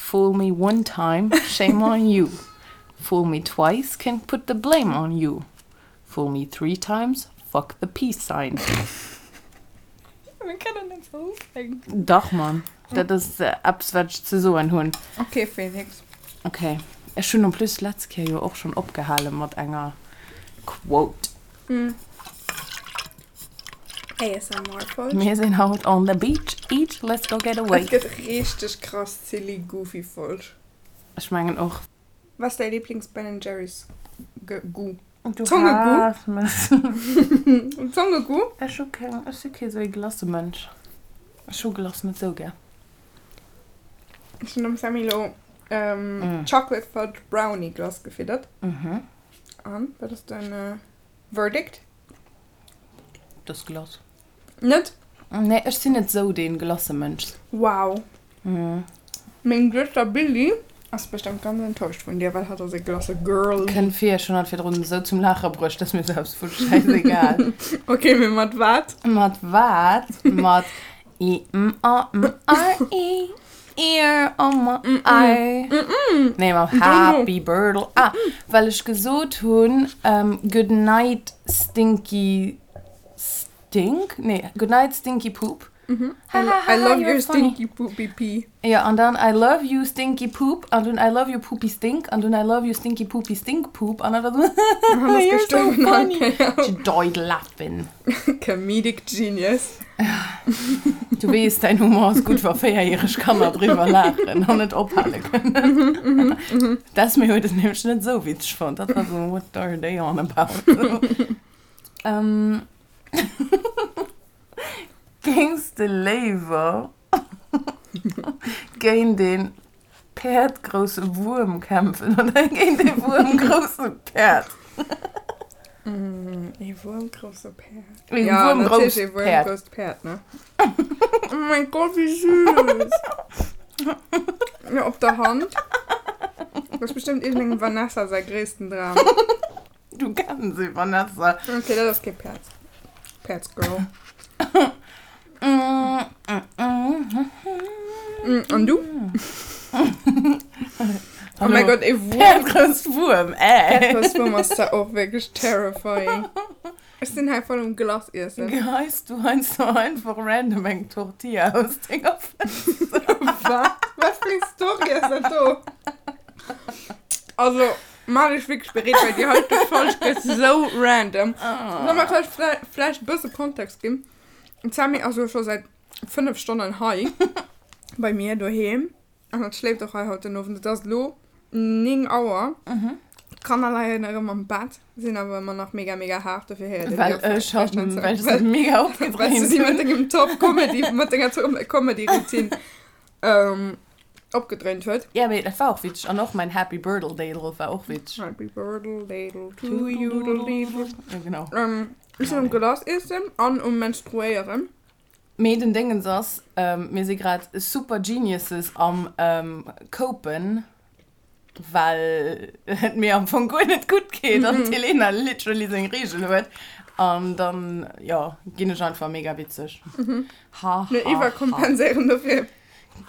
Fool me one time, shame on you. Fool me twice, can put the blame on you. Fool me three times, fuck the peace sign. Mir kënnen net sou ufänken. Dach, Mann. Dat ass eppes, wat ech ze soen hunn. Ok, Felix. Ok. Ech hunn en plus d'letz Kéier jo och schonn opgehale mat enger Quote. ASMR-Folg. Mir sinn haut on the beach, each, let's go get away. Et gëtt richteg krass silly goofy Folg. Ech mengen och. Was ass däi Lieblings Ben Jerry's Goût? Du Zongegoût? haass mech. Zongegoût? Ech hu keng, ech si kee sou ee Glacemënsch. Ech hu Glace net sou gär. Ech hunn dem Sammy lo Chocolate Fudge Brownie Glace gefiddert. An, wat ass däin Verdict? Dës Glace. Net? Nee, ech sinn net sou dee Glacemënsch. Wow. Meng Duechter Billy ass bestëmmt ganz enttäuscht vun dir, well hatt ass e Glace-Girl. Kënnt vir, ech hunn hatt virdrun esou zum Laache bruecht, dass mir selbst wurscht, schäisegal. Ok, mee mat wat? Mat wat? Mat I M A M R E Ear on my eye. Nee, mam Happy Birtle. Ah, well ech gesot hunn, Good night stinky stink? Nee, Good night stinky poop. I love your stinky poopy pee. Jo, an dann I love you stinky poop, an dunn I love you poopy stink, an dunn I love you stinky poopy stink poop, an dann war esou, You're so funny. She died laughing. Comedic genius. Du weess, däin Humor ass gutt, wa véierjäreg Kanner driwwer laachen an net ophale kënnen. D'Esme huet et nämlech net esou witzeg fonnt. Dat war esou, What are they on about? Géings de léiwer géint ee päerdgrousse Wuerm kämpfen oder géint ee wuermgrousse Päerd? Ee wuermgrousse Päerd. Ee Ja, wuermgrousst natierlech ee Päerd. wuermgrousst Päerd, ne? Oh mein Gott, wéi süß! Ja, op der Hand. Dat ass bestimmt iergendengem Vanessa säi gréissten Dram. Du kenns se, Vanessa. Okay, dat ass kee Päerd. Päerdsgirl. An du? Oh mein Gott, ee Wuerm. Päerdgrouss Wuerm, äh. Päerdgrouss Wuerm ass zwar och wierklech terrifying. Ech sinn hei voll um Glace iessen. Geheis du heiansdo einfach random eng Tortilla aus denger Fënster? Wat? Wat fir eng Story ass dat do? Also. Maach dech wierklech bereet, well déi heite Folg gëtt sou random. Soll mer vläicht vläicht e bësse Kontext ginn? D'Sammy ass elo scho säit 5 Stonnen hei bei mir doheem an hatt schléift och hei haut den Owend. Et ass elo 9 Auer. D'Kanner leien erëm am Bett, sinn awer ëmmer nach mega mega haart, dofir héiert een déi Well och ech vläicht net hatt, sou. well ech se mega Well s du opgedréint si mat hunn. dengem Top Comedy, mat denger Top Comedy Routine Opgedréint huet. Ja, mee dat war och witzeg. An och mäin Happy Birdle Dadle war och witzeg. Happy Birdle Dadle to you dle deedle. Ja, genau. Ech sinn um Glace iessen an um Menstruéieren. Mee den Déngens ass, mir si grad super Geniuses am Copen, well et mir am Fong guer net gutt geet an d'Helena literally seng Reegel huet. An dann, jo, ginn ech einfach mega witzeg. Ha, ha, Mir ha. iwwerkompenséieren dofir.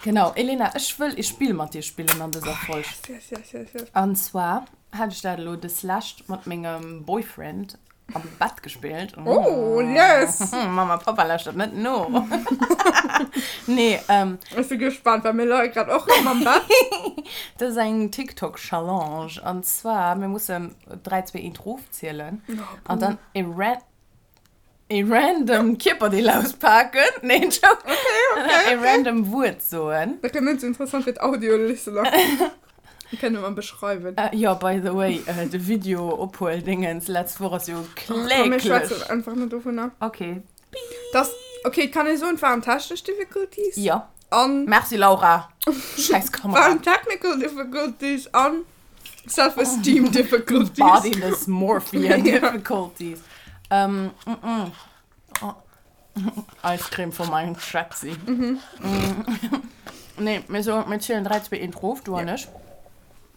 Genau, Elena, ech wëll ee Spill mat dir spillen an dëser Folg. Oh, yes, yes, yes, yes. An zwar hat ech dat elo deslescht mat mengem Boyfriend am Bett gespillt. Oh, yes! Mama, Papa lauschtert net no. Nee, ähm. Ech si gespannt, well mir leie grad och rëm am Bett. Dat ass eng TikTok-Challenge. An zwar, mir mussen 3, 2, 1 rofzielen. An dann e ran. E random Kierperdeel auspaken. Nee, Joke. Okay, okay, E random Wuert soen. Dat gëtt net sou interessant fir d'Audio-Listener. Kënne mer beschreiwen. Jo, by the way, de Video-Ophuel-Dingens letzt Woch ass jo Komm, mir kläglech. schwätzen einfach net dovunner. Okay. Das, okay, kann ee soen, et waren technesch Difficulties. Jo. An. Merci, Laura. Schäiss Kamera. Waren technical difficulties an Self-esteem difficulties. Body dysmorphia difficulties. Ähm, mm, mm. Oh. Ice Cream von meinem Schätzi. Mm. Nee, mir so, mir zielen 3, 2, 1 rof, du an ech.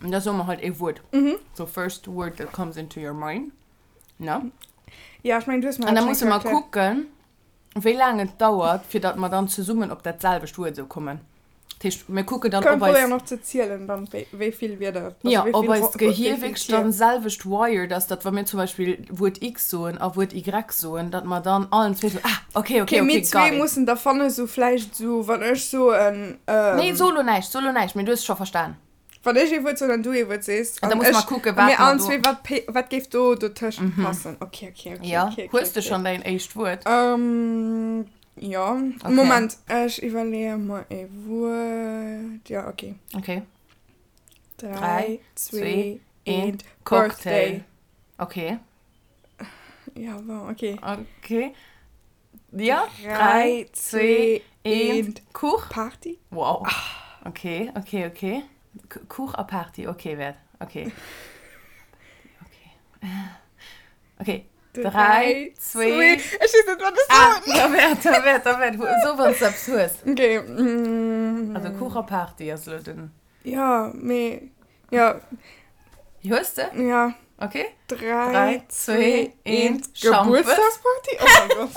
Und da soe mer halt ee Wuert. So first word that comes into your mind. Ne? Ja, ech mengen, du hues mer An da dat musse schon mer erkläert. kucken, wéi laang et dauert, fir datt mer dann zesummen op dat selwecht Wuert esou kommen. Dat heescht, mir kucken dann, Können ob eis. probéieren och ze zielen dann, wéi, wéi vill Wierder, also Ja, wéi ob vill eist Wo-, wéi Gehier vill wierklech Tier. dann selwecht wired ass, datt wa mir zum Beispill Wuert X soen a Wuert Y soen, datt mer dann allen zwee sou, ah, okay, okay, Okay, mir okay, got zwee it. mussen da fannen, sou vläicht sou, wann ech soen, Nee, ähm. so lo näischt, so lo näischt, mee du hues scho verstan. Wann ech ee Wuert soen an du ee Wuert sees, An da an musse mer ech, kucken, a wat mir mer allen do. zwee, wat pe-, wat géif do dotëscht passen. Okay, okay, okay, Ja, okay, okay, hues de okay. schonn däin éischt Wuert? Ähm, ja. Okay. Moment, ech iwwerleeë mer ee Wuert. Ja, okay. Okay. 3, 3, 2, 2, 1, 1, Cocktail. Birthday. Okay. Ja, bon, okay. Okay. Ja, 3, 3, 2, 2, 1, 1, Kuch. Party. Wow. Okay, okay, okay. Kuch a Party, okay, wäert. Okay. Okay. Okay. 3, 2. Ech weess net, wat ech Ah, soen. da wäert, da wäert, da wäert. So, wann s du eppes hues. Okay. Mm. Also Kuch a Party ass elo den. Ja, mee. Ja. Hues de? Ja. Okay. 3, 3, 2, 2, 1. 1. Schampes. Geburtstagsparty? Oh mein Gott.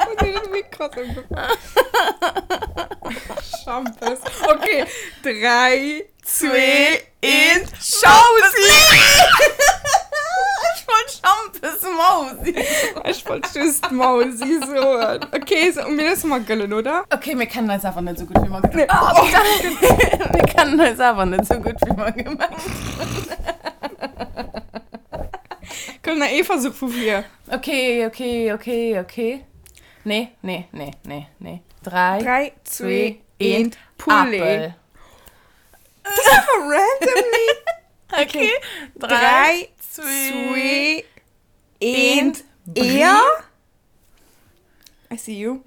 Oh nee, das ist krass emgefallen. Schampes. Okay. 3, 2, 1. Schausi! Ech wollt Schampes Mausi. Ech wollt just Mausi soen. Okay, so, mir loosse mer gëllen, oder? Okay, mir kennen eis awer net esou gutt, wéi mer gemengt Nee. Oh, mir kennen eis awer net esou gutt, wéi mer gemengt hunn. Komm, nach ee Versuch vu vir. Okay, okay, okay, okay. Nee, nee, nee, nee, nee. 3, 3, 2, 2, 1, 1, Poulet. Apel. Das ist einfach randomly. Okay. 3, 3, 2, 2, 1, 1, Eer. I see you.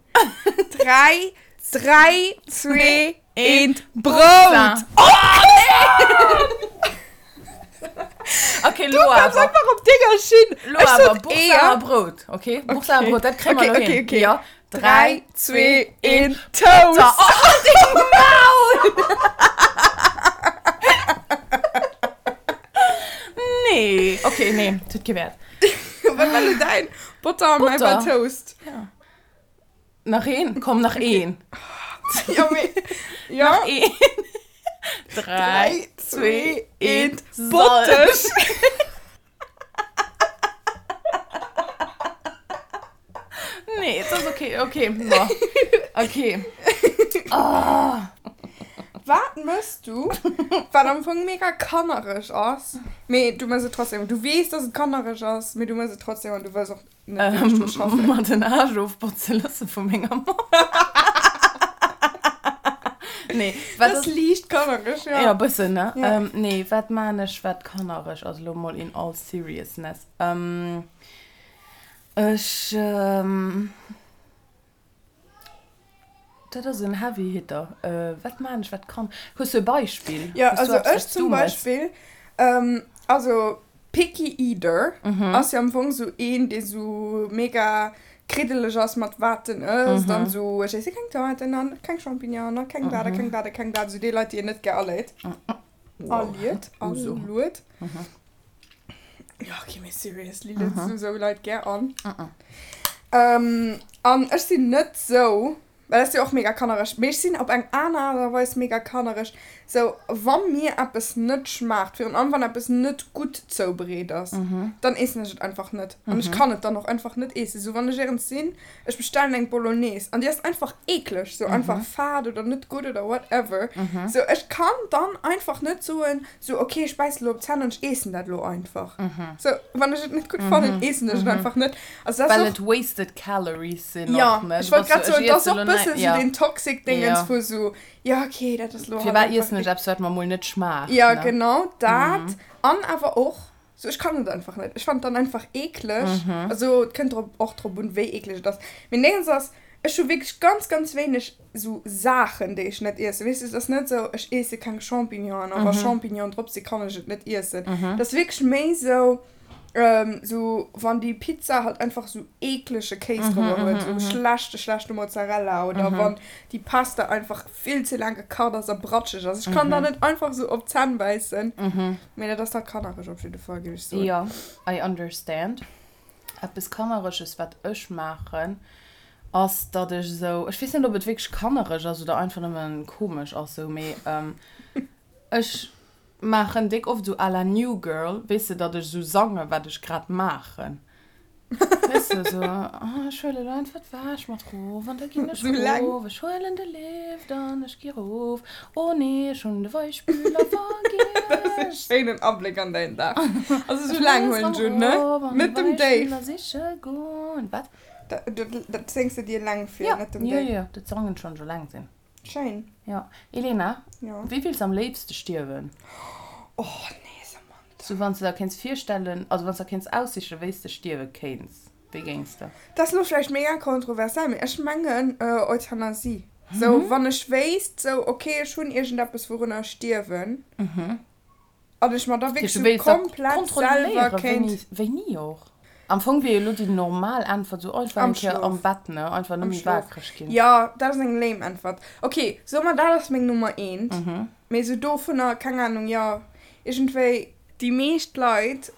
3, 3, 2, 1, Brout. Okay, Du lo kommst awer. einfach op denger Schinn. Lo Ech awer, sot Boursin Eeër. a Brout, okay? Boursin a Okay. Brout, dat kréie mer Okay, lo okay, hin. okay. Ja. 3, 2, 1, Toast. Oh, halt deng Maul! Nee, okay, nee, tut kee Wäert. Wat war lo däin? Botter an mäi war Butter. Toast. Ja. Nach een? Komm, nach een. Ja, mee, ja. Nach een. 3, 3, 2, 2, 1, 1, Salz. Botteg. Nee, et ass okay, okay, bon. Okay. Oh. Wat mëss du, wat am Fong mega kannereg ass, mee du mëss et trotzdem. Du weess, dass et kannereg ass, mee du mëss et trotzdem an du wëlls och net wierklech dru schaffen. Mer den Aarsch ofbotze loosse vu menger Mamm. Nee, wat Dat ass liicht kannereg, ja. Ja, bëssen, ne? Ja. Ähm, nee, wat maan ech, wat kannereg ass, elo mol in all seriousness? Ähm, ech, ähm, dat ass en heavy hitter. Äh, wat maan ech, wat kann. Hues du e Beispill? Ja, Hues du also eppes, ech wat s zum du mëss? Beispill, ähm, also Picky Eater ass jo am Fong sou een, dee sou mega kriddeleg ass mat wat en ësst an sou, ech iesse keng Tomaten an keng Champignonen a keng dat a keng dat a keng dat, sou déi Leit, déi een net gär aleet. Aliet, aluet. Ja, okay, mee seriously, lueds du sou Leit gär an? An ech sinn net sou. Well dat ass jo och mega kannereg. Mee ech sinn op eng aner Aart a Weis mega kannereg. Sou, wa mir eppes net schmaacht, virun allem wann eppes net gutt zoubereet ass, dann eessen ech et einfach net. An ech kann et dann och einfach net eessen. Sou, wann ech éierens sinn, ech bestellen eng Bolognese an déi ass einfach eekleg, sou einfach fad oder net gutt oder whatever. Sou, ech kann dann einfach net soen, Sou, ok, ech bäissen elo op d'Zänn an ech eessen dat elo einfach. Sou, wann ech et net gutt fannen, eessen ech et einfach net. Also dat Well ass och. et wasted calories sinn Ja, och, ne? ech Du wollt bass grad sou, ech soen, et ass iesse och elo bëssen näi, sou ja. deen toxic Dingens Ja. vu sou, ja ok, dat ass elo halt Firwat einfach iessen ech eppes, wat mer mol net schmaacht, Ja, ne? genau dat. An awer och, sou, ech kann et einfach net. Ech fannen et dann einfach eekleg. Also et kënnt drop, och drop un, wéi eekleg et ass. Mee Dingens ass, Ech hu wierklech ganz, ganz wéineg sou Saachen, déi ech net iessen. Weess de, et ass net sou, ech iesse keng Champignonen a wa Champignonen drop sinn, kann ech et net iessen. Et ass wierklech méi sou, sou wann déi Pizza halt einfach sou eeklege Kéis drobber huet, sou schlechte, schlechte Mozzarella oder wann déi Pasta einfach vill ze laang gekacht ass a bratscheg ass. Ech kann da net einfach sou op d'Zänn bäissen. Mee dat ass da kannereg op jidde Fall, géif ech soen. Jo, I understand. Eppes Kannereges, wat ech maachen. Ass, datt ech esou, ech weess net, ob et wierklech kannereg ass oder einfach nëmmen komesch ass esou, mee ech maachen déck oft esou à la New Girl, weess de, datt ech esou sange wat ech grad maachen. Weess de, esou, oh ech huelen elo einfach d'Wäsch mat rof an da ginn ech rof, ech huelen de Lift an ech gi rof, oh nee, ech hunn de Weichspüler vergiess. Dat ass e schéinen Abléck an däin Dag. Also esou laang huelen ech un, ne? Net dem Dave. Siche goen. Wat? Dat séngs de dir eleng vir, net dem Dave. Jo, jo, dat sangen ech, wann ech eleng sinn. Schéin. Jo. Elena, wéi wills am léifste stierwen? Oh nee, Samantha. Sou wann s de der kéints virstellen, also wann s der kéints aussichen, wéi s de stierwe kéints, wéi géings de? Dat ass elo vläicht mega kontroversell, mee ech mengen Euthanasie. Sou wann ech wéisst, sou ok, ech hunn iergendeppes wourunner ech stierwen. An ech mer da wierklech sou komplett selwer kéint. Wéini och? Am Fong wier jo elo déi normal Äntwert sou einfach eng Kéier am Bett, ne? Einfach nëmme waakreg ginn. Jo, dat ass eng lame Äntwert. Ok, soe mer dat ass meng Nummer eent. Mee sou dovunner, keng Ahnung, jo, iergendwéi. Déi meescht Leit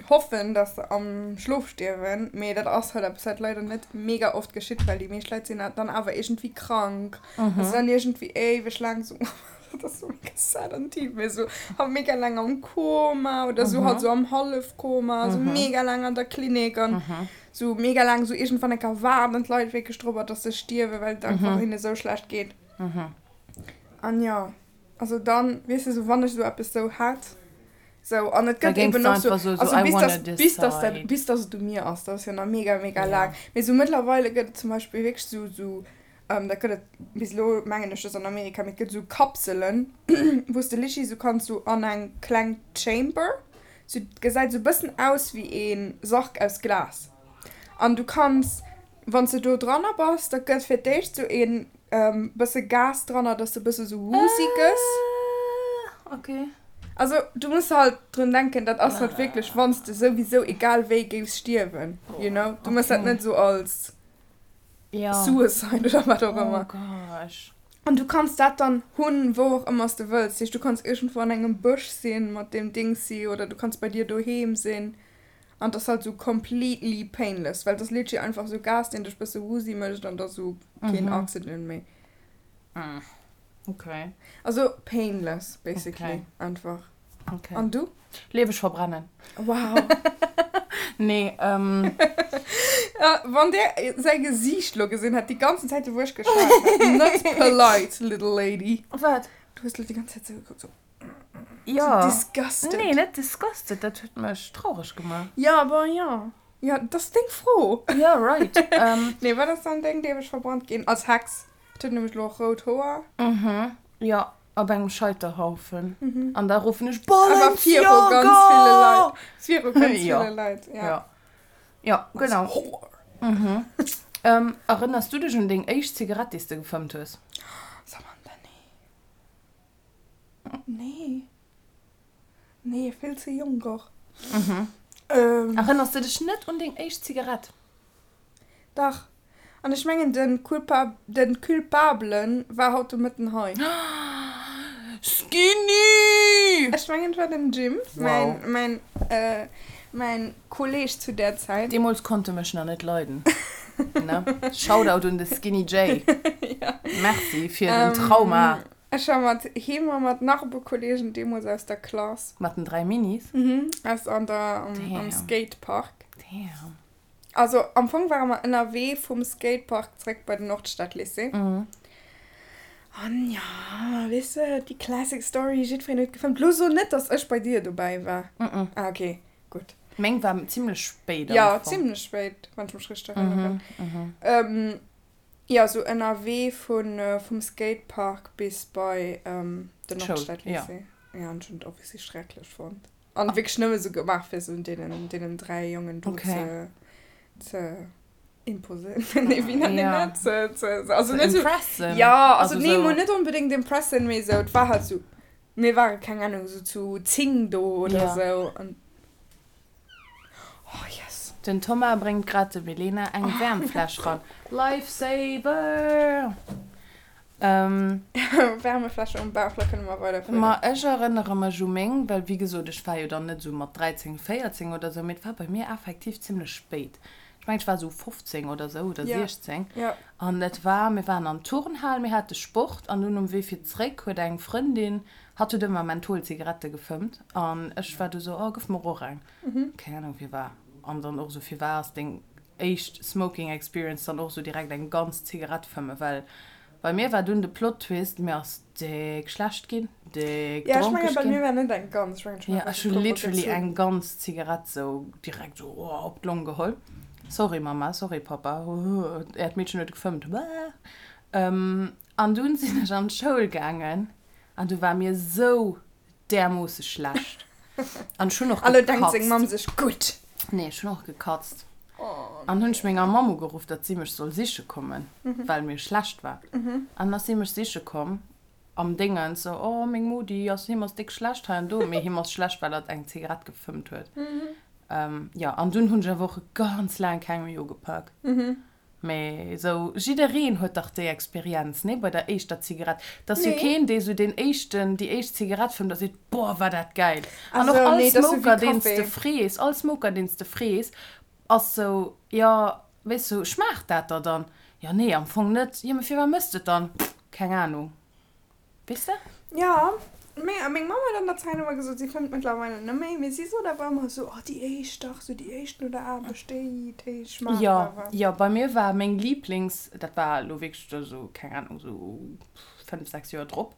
hoffen, dass se am Schlof stierwen, mee dat ass halt eppes, wat leider net mega oft geschitt, well déi meescht Leit sinn dann awer iergendwéi krank a sinn dann iergendwéi éiweg laang sou. Dat ass sou mega sad an tief, mee sou halt mega laang am Koma oder sou halt sou am Hallefkoma, sou mega laang an der Klinik an sou mega laang sou iergendwann enker waarden d'Leit wierklech drobber, dass se stierwen, well et einfach hinne sou schlecht geet. An jo, also dann, weess de, sou wann ech sou eppes sou hätt, sou an et gëtt eben och sou, also bis dass, bis dass dat, bis dass et u mir ass, dat ass jo nach mega, mega laang, mee sou mëttlerweile gëtt et zum Beispill wierklech sou, sou Dat gëtt et bis elo, mengen ech, just an Amerika, mee et gëtt esou Kapselen, wou s de literally esou kanns esou an eng kleng Chamber, sou gesäit esou e bëssen aus wéi ee Sarg aus Glas. An du kanns, wann s de do dranner bass, da gëtt fir d'éischt esou ee bësse Gas dranner, dass de e bësse sou woozy gëss. Also du muss halt drun denken, dat ass halt wierklech, wann s de souwisou egal wéi géifs stierwen, you know. Du méchs dat net esou als. Ja. Suicide oder wat och ëmmer. Oh gosh. An du kanns dat dann hunn, wou och ëmmer s de wëlls. Dat heescht, du kanns iergendwou an engem Bësch sinn mat deem Dingsi oder du kanns bei dir doheem sinn. An 't ass halt sou completely painless, well 't ass literally einfach sou Gas, deen dech bësse woozy mécht an da sou keen Oxygen méi. Okay. Also painless basically einfach. Okay. An du? Lieweg verbrennen. Wow. Nee, ähm. Ja, wann der säi Gesiicht lo gesinn hätt, déi ganzen Zäit, wou ech geschwat hat. Net polite, little lady. Wat? Du hues lo déi ganz Zäit sou gekuckt, sou. Ja. So disgusted. Nee, net disgusted, dat huet mech traureg gemaach. Ja, bon, ja. Ja, dat ass deng Fro. Ja, right. Ähm. Nee, wat ass dann deng lieweg verbrannt ginn? Als Hex. Et huet nämlech lo och rout Hoer. Mhm. Ja. Op engem Scheiterhaufen. An da ruffen ech Awer viru ganz ville Balenciaga! Leit. Viru ganz ville Leit, ja. Ja. Ja, genau. Whore. Mhm. Ähm, erënners du dech un deng éischt Zigarett, déi s de gefëmmt hues? Samantha, nee. Nee. Nee, vill ze jonk och. Mhm. Ähm. Erënners du dech net un deng éischt Zigarett? Dach. An ech mengen den Culpa den Culpablen war haut de Mëtten hei. Skinny! Ech mengen et war den Jim, mäin mäin mäin Kolleg zu där Zäit. Deemools konnt e mech nach net leiden, ne? Shoutout un de Skinny Jay. Merci fir den Trauma. Ech war mat him a mat nach e puer Kollegen deemools aus der Klass. Mat den 3 Minis? Mhm, aus an der am Skatepark. Damn. Also am Fong ware mer ënnerwee vum Skatepark zréck bei den Nordstadlycée. An jo, weess de, déi classic Story, jiddwereen huet gefëmmt. Lo so net, dass ech bei dir dobäi war. Ah ok, gutt. Meng war zimlech spéit am Jo, Fong. zimlech spéit, wann ech mech richteg erënneren. Jo, sou ënnerwee vum Skatepark bis bei den Nordstadlycée. Jo, an ech hunn et obviously schrecklech fonnt. An wierklech nëmme sou gemaach fir sou deenen, deenen 3 Jongen do Okay. ze, ze imposen. Nee, wéi nennt een Ja. dat? Ze, ze, also Ze net sou, impressen. ja, also, Also nee, sou. mol net onbedéngt impressen, mee sou, et war halt sou, mir ware keng Ahnung, sou zu 10 do oder Ja. sou an, oh yes. Den Thomas bréngt grad dem Elena eng Wärmfläsch ran. Lifesaver! Wärmefläsche um Bauch, da kënne mer weiderfueren. Ma ech erënnere mech u meng, well wéi gesot, ech war jo dann net esou mat 13, 14 oder esou, mee et war bei mir effektiv zimlech spéit. Ech mengen, ech war esou 15 oder esou oder Ja. 16. Ja. An et war, mir waren an d'Turnhal, mir hate Sport an dunn um Wee fir zréck huet eng Frëndin, hatt huet ëmmer Mentholzigarette gefëmmt an ech war du sou, oh gëff mer och eng. Keng Ahnung firwar. An dann och esou, firwar ass deng éischt Smoking Experience dann och esou direkt eng ganz Zigarett fëmmen? Well bei mir war dunn de Plot Twist, mir ass déck schlecht ginn, déck Ja, ech mengen dronkeg bei ginn. mir war net eng ganz, ech mengen ech hunn Ja, einfach ech e hu puer mol literally gezunn. eng ganz Zigarett sou direkt sou oh op d'Long geholl. Sorry Mama, sorry Papa, äert Meedchen huet gefëmmt. An dunn sinn ech an d'Schoul gaangen an du war mir sou därmoosse schlecht. An ech hunn och A lo denkt seng gekatzt. Mamm sech, Gutt! Nee, ech hunn och gekatzt. Oh An hunn ech nee. menger Mamm ugeruff, datt si mech soll siche kommen, well mir schlecht war. An dann ass si mech siche komm am Déngens, sou, Oh, meng Modi ass, him ass déck schlecht hei an do. Mee him ass schlecht, well hatt eng Zigarett gefëmmt huet. Jo, an dunn hunn ech awer och ganz laang keng méi ugepak. Mee esou, jiddereen huet dach déi Experienz, nee, bei der éischter Zigarett. Et ass jo Nee. keen, dee sou deen éischten, déi éischt Zigarett fëmmt a seet, Boah, war dat gäil. An och Also, all nee, dat ass sou wéi Smoker, deen s de Café. frees, all Smoker, deen s de frees, ass sou, jo, weess du, schmaacht dat der dann? Jo, nee, am Fong net. Jo, mee firwat mëss de et dann? Keng Ahnung. Weess de? Jo, mee a meng Mamm huet an der Zäit ëmmer gesot, si fëmmt mëttlerweile net méi, mee si sot awer ëmmer esou, oh déi éischt dach, esou déi éischt no der Aarbecht, déi, déi schmaacht Jo, awer. jo, bei mir war meng Lieblings, dat war elo wierklech esou, keng Ahnung, esou 5, 6 Joer drop,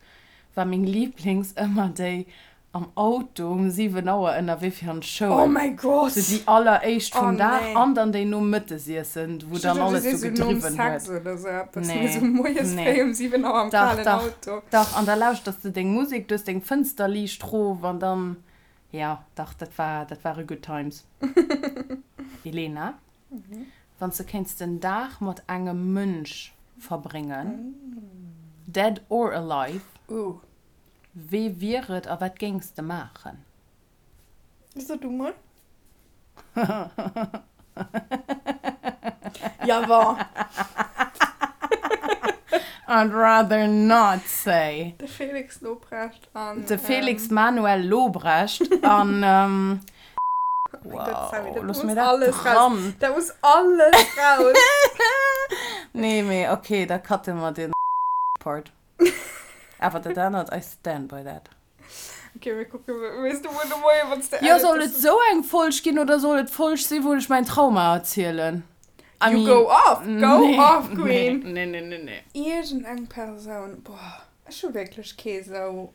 war meng Lieblings ëmmer déi Am Auto um 7 Auer ënnerwee fir an d'Schoul. Oh mäi Gott! Sou déi alleréischt Oh vum Dag nee. an dann déi nom Mëttesiessen, wou Ech dann duecht, du alles sees sou sou nom gedriwwen Sex huet. oder sou eppes, mee Nee, sou moies nee. fréi um 7 Auer am Dach, kalen dach, Auto. dach. An da lauschters de deng Musek, du hues deng Fënster liicht rof an dann, jo, dach, dat war, dat ware good times. Elena, wann s de kéints den Dag mat engem Mënsch verbréngen, dead or alive, Ooh. Wee wier et a wat géings de maachen? So du mol. Ja bon. I'd rather not say. De Felix Lobrecht an. De Felix Manuel Lobrecht an. Oh mein Gott, Sammy, Wow, dat looss muss mir dat alles raus. dran. Dat muss alles raus. Nee, mee okay, da cutte mer den Part. Awer dat anert, I stand by that. Okay, mir kucken, weess du muer de Moien, wann s de Jo, edit, soll dass et du. sou eng Folg ginn oder soll et d'Folg sinn, wou ech mäin Trauma erzielen? I You mean, go off, go nee, off, nee, Queen! nee, nee, nee, nee. Iergendeng Persoun, boah, ech hu wierklech kee sou,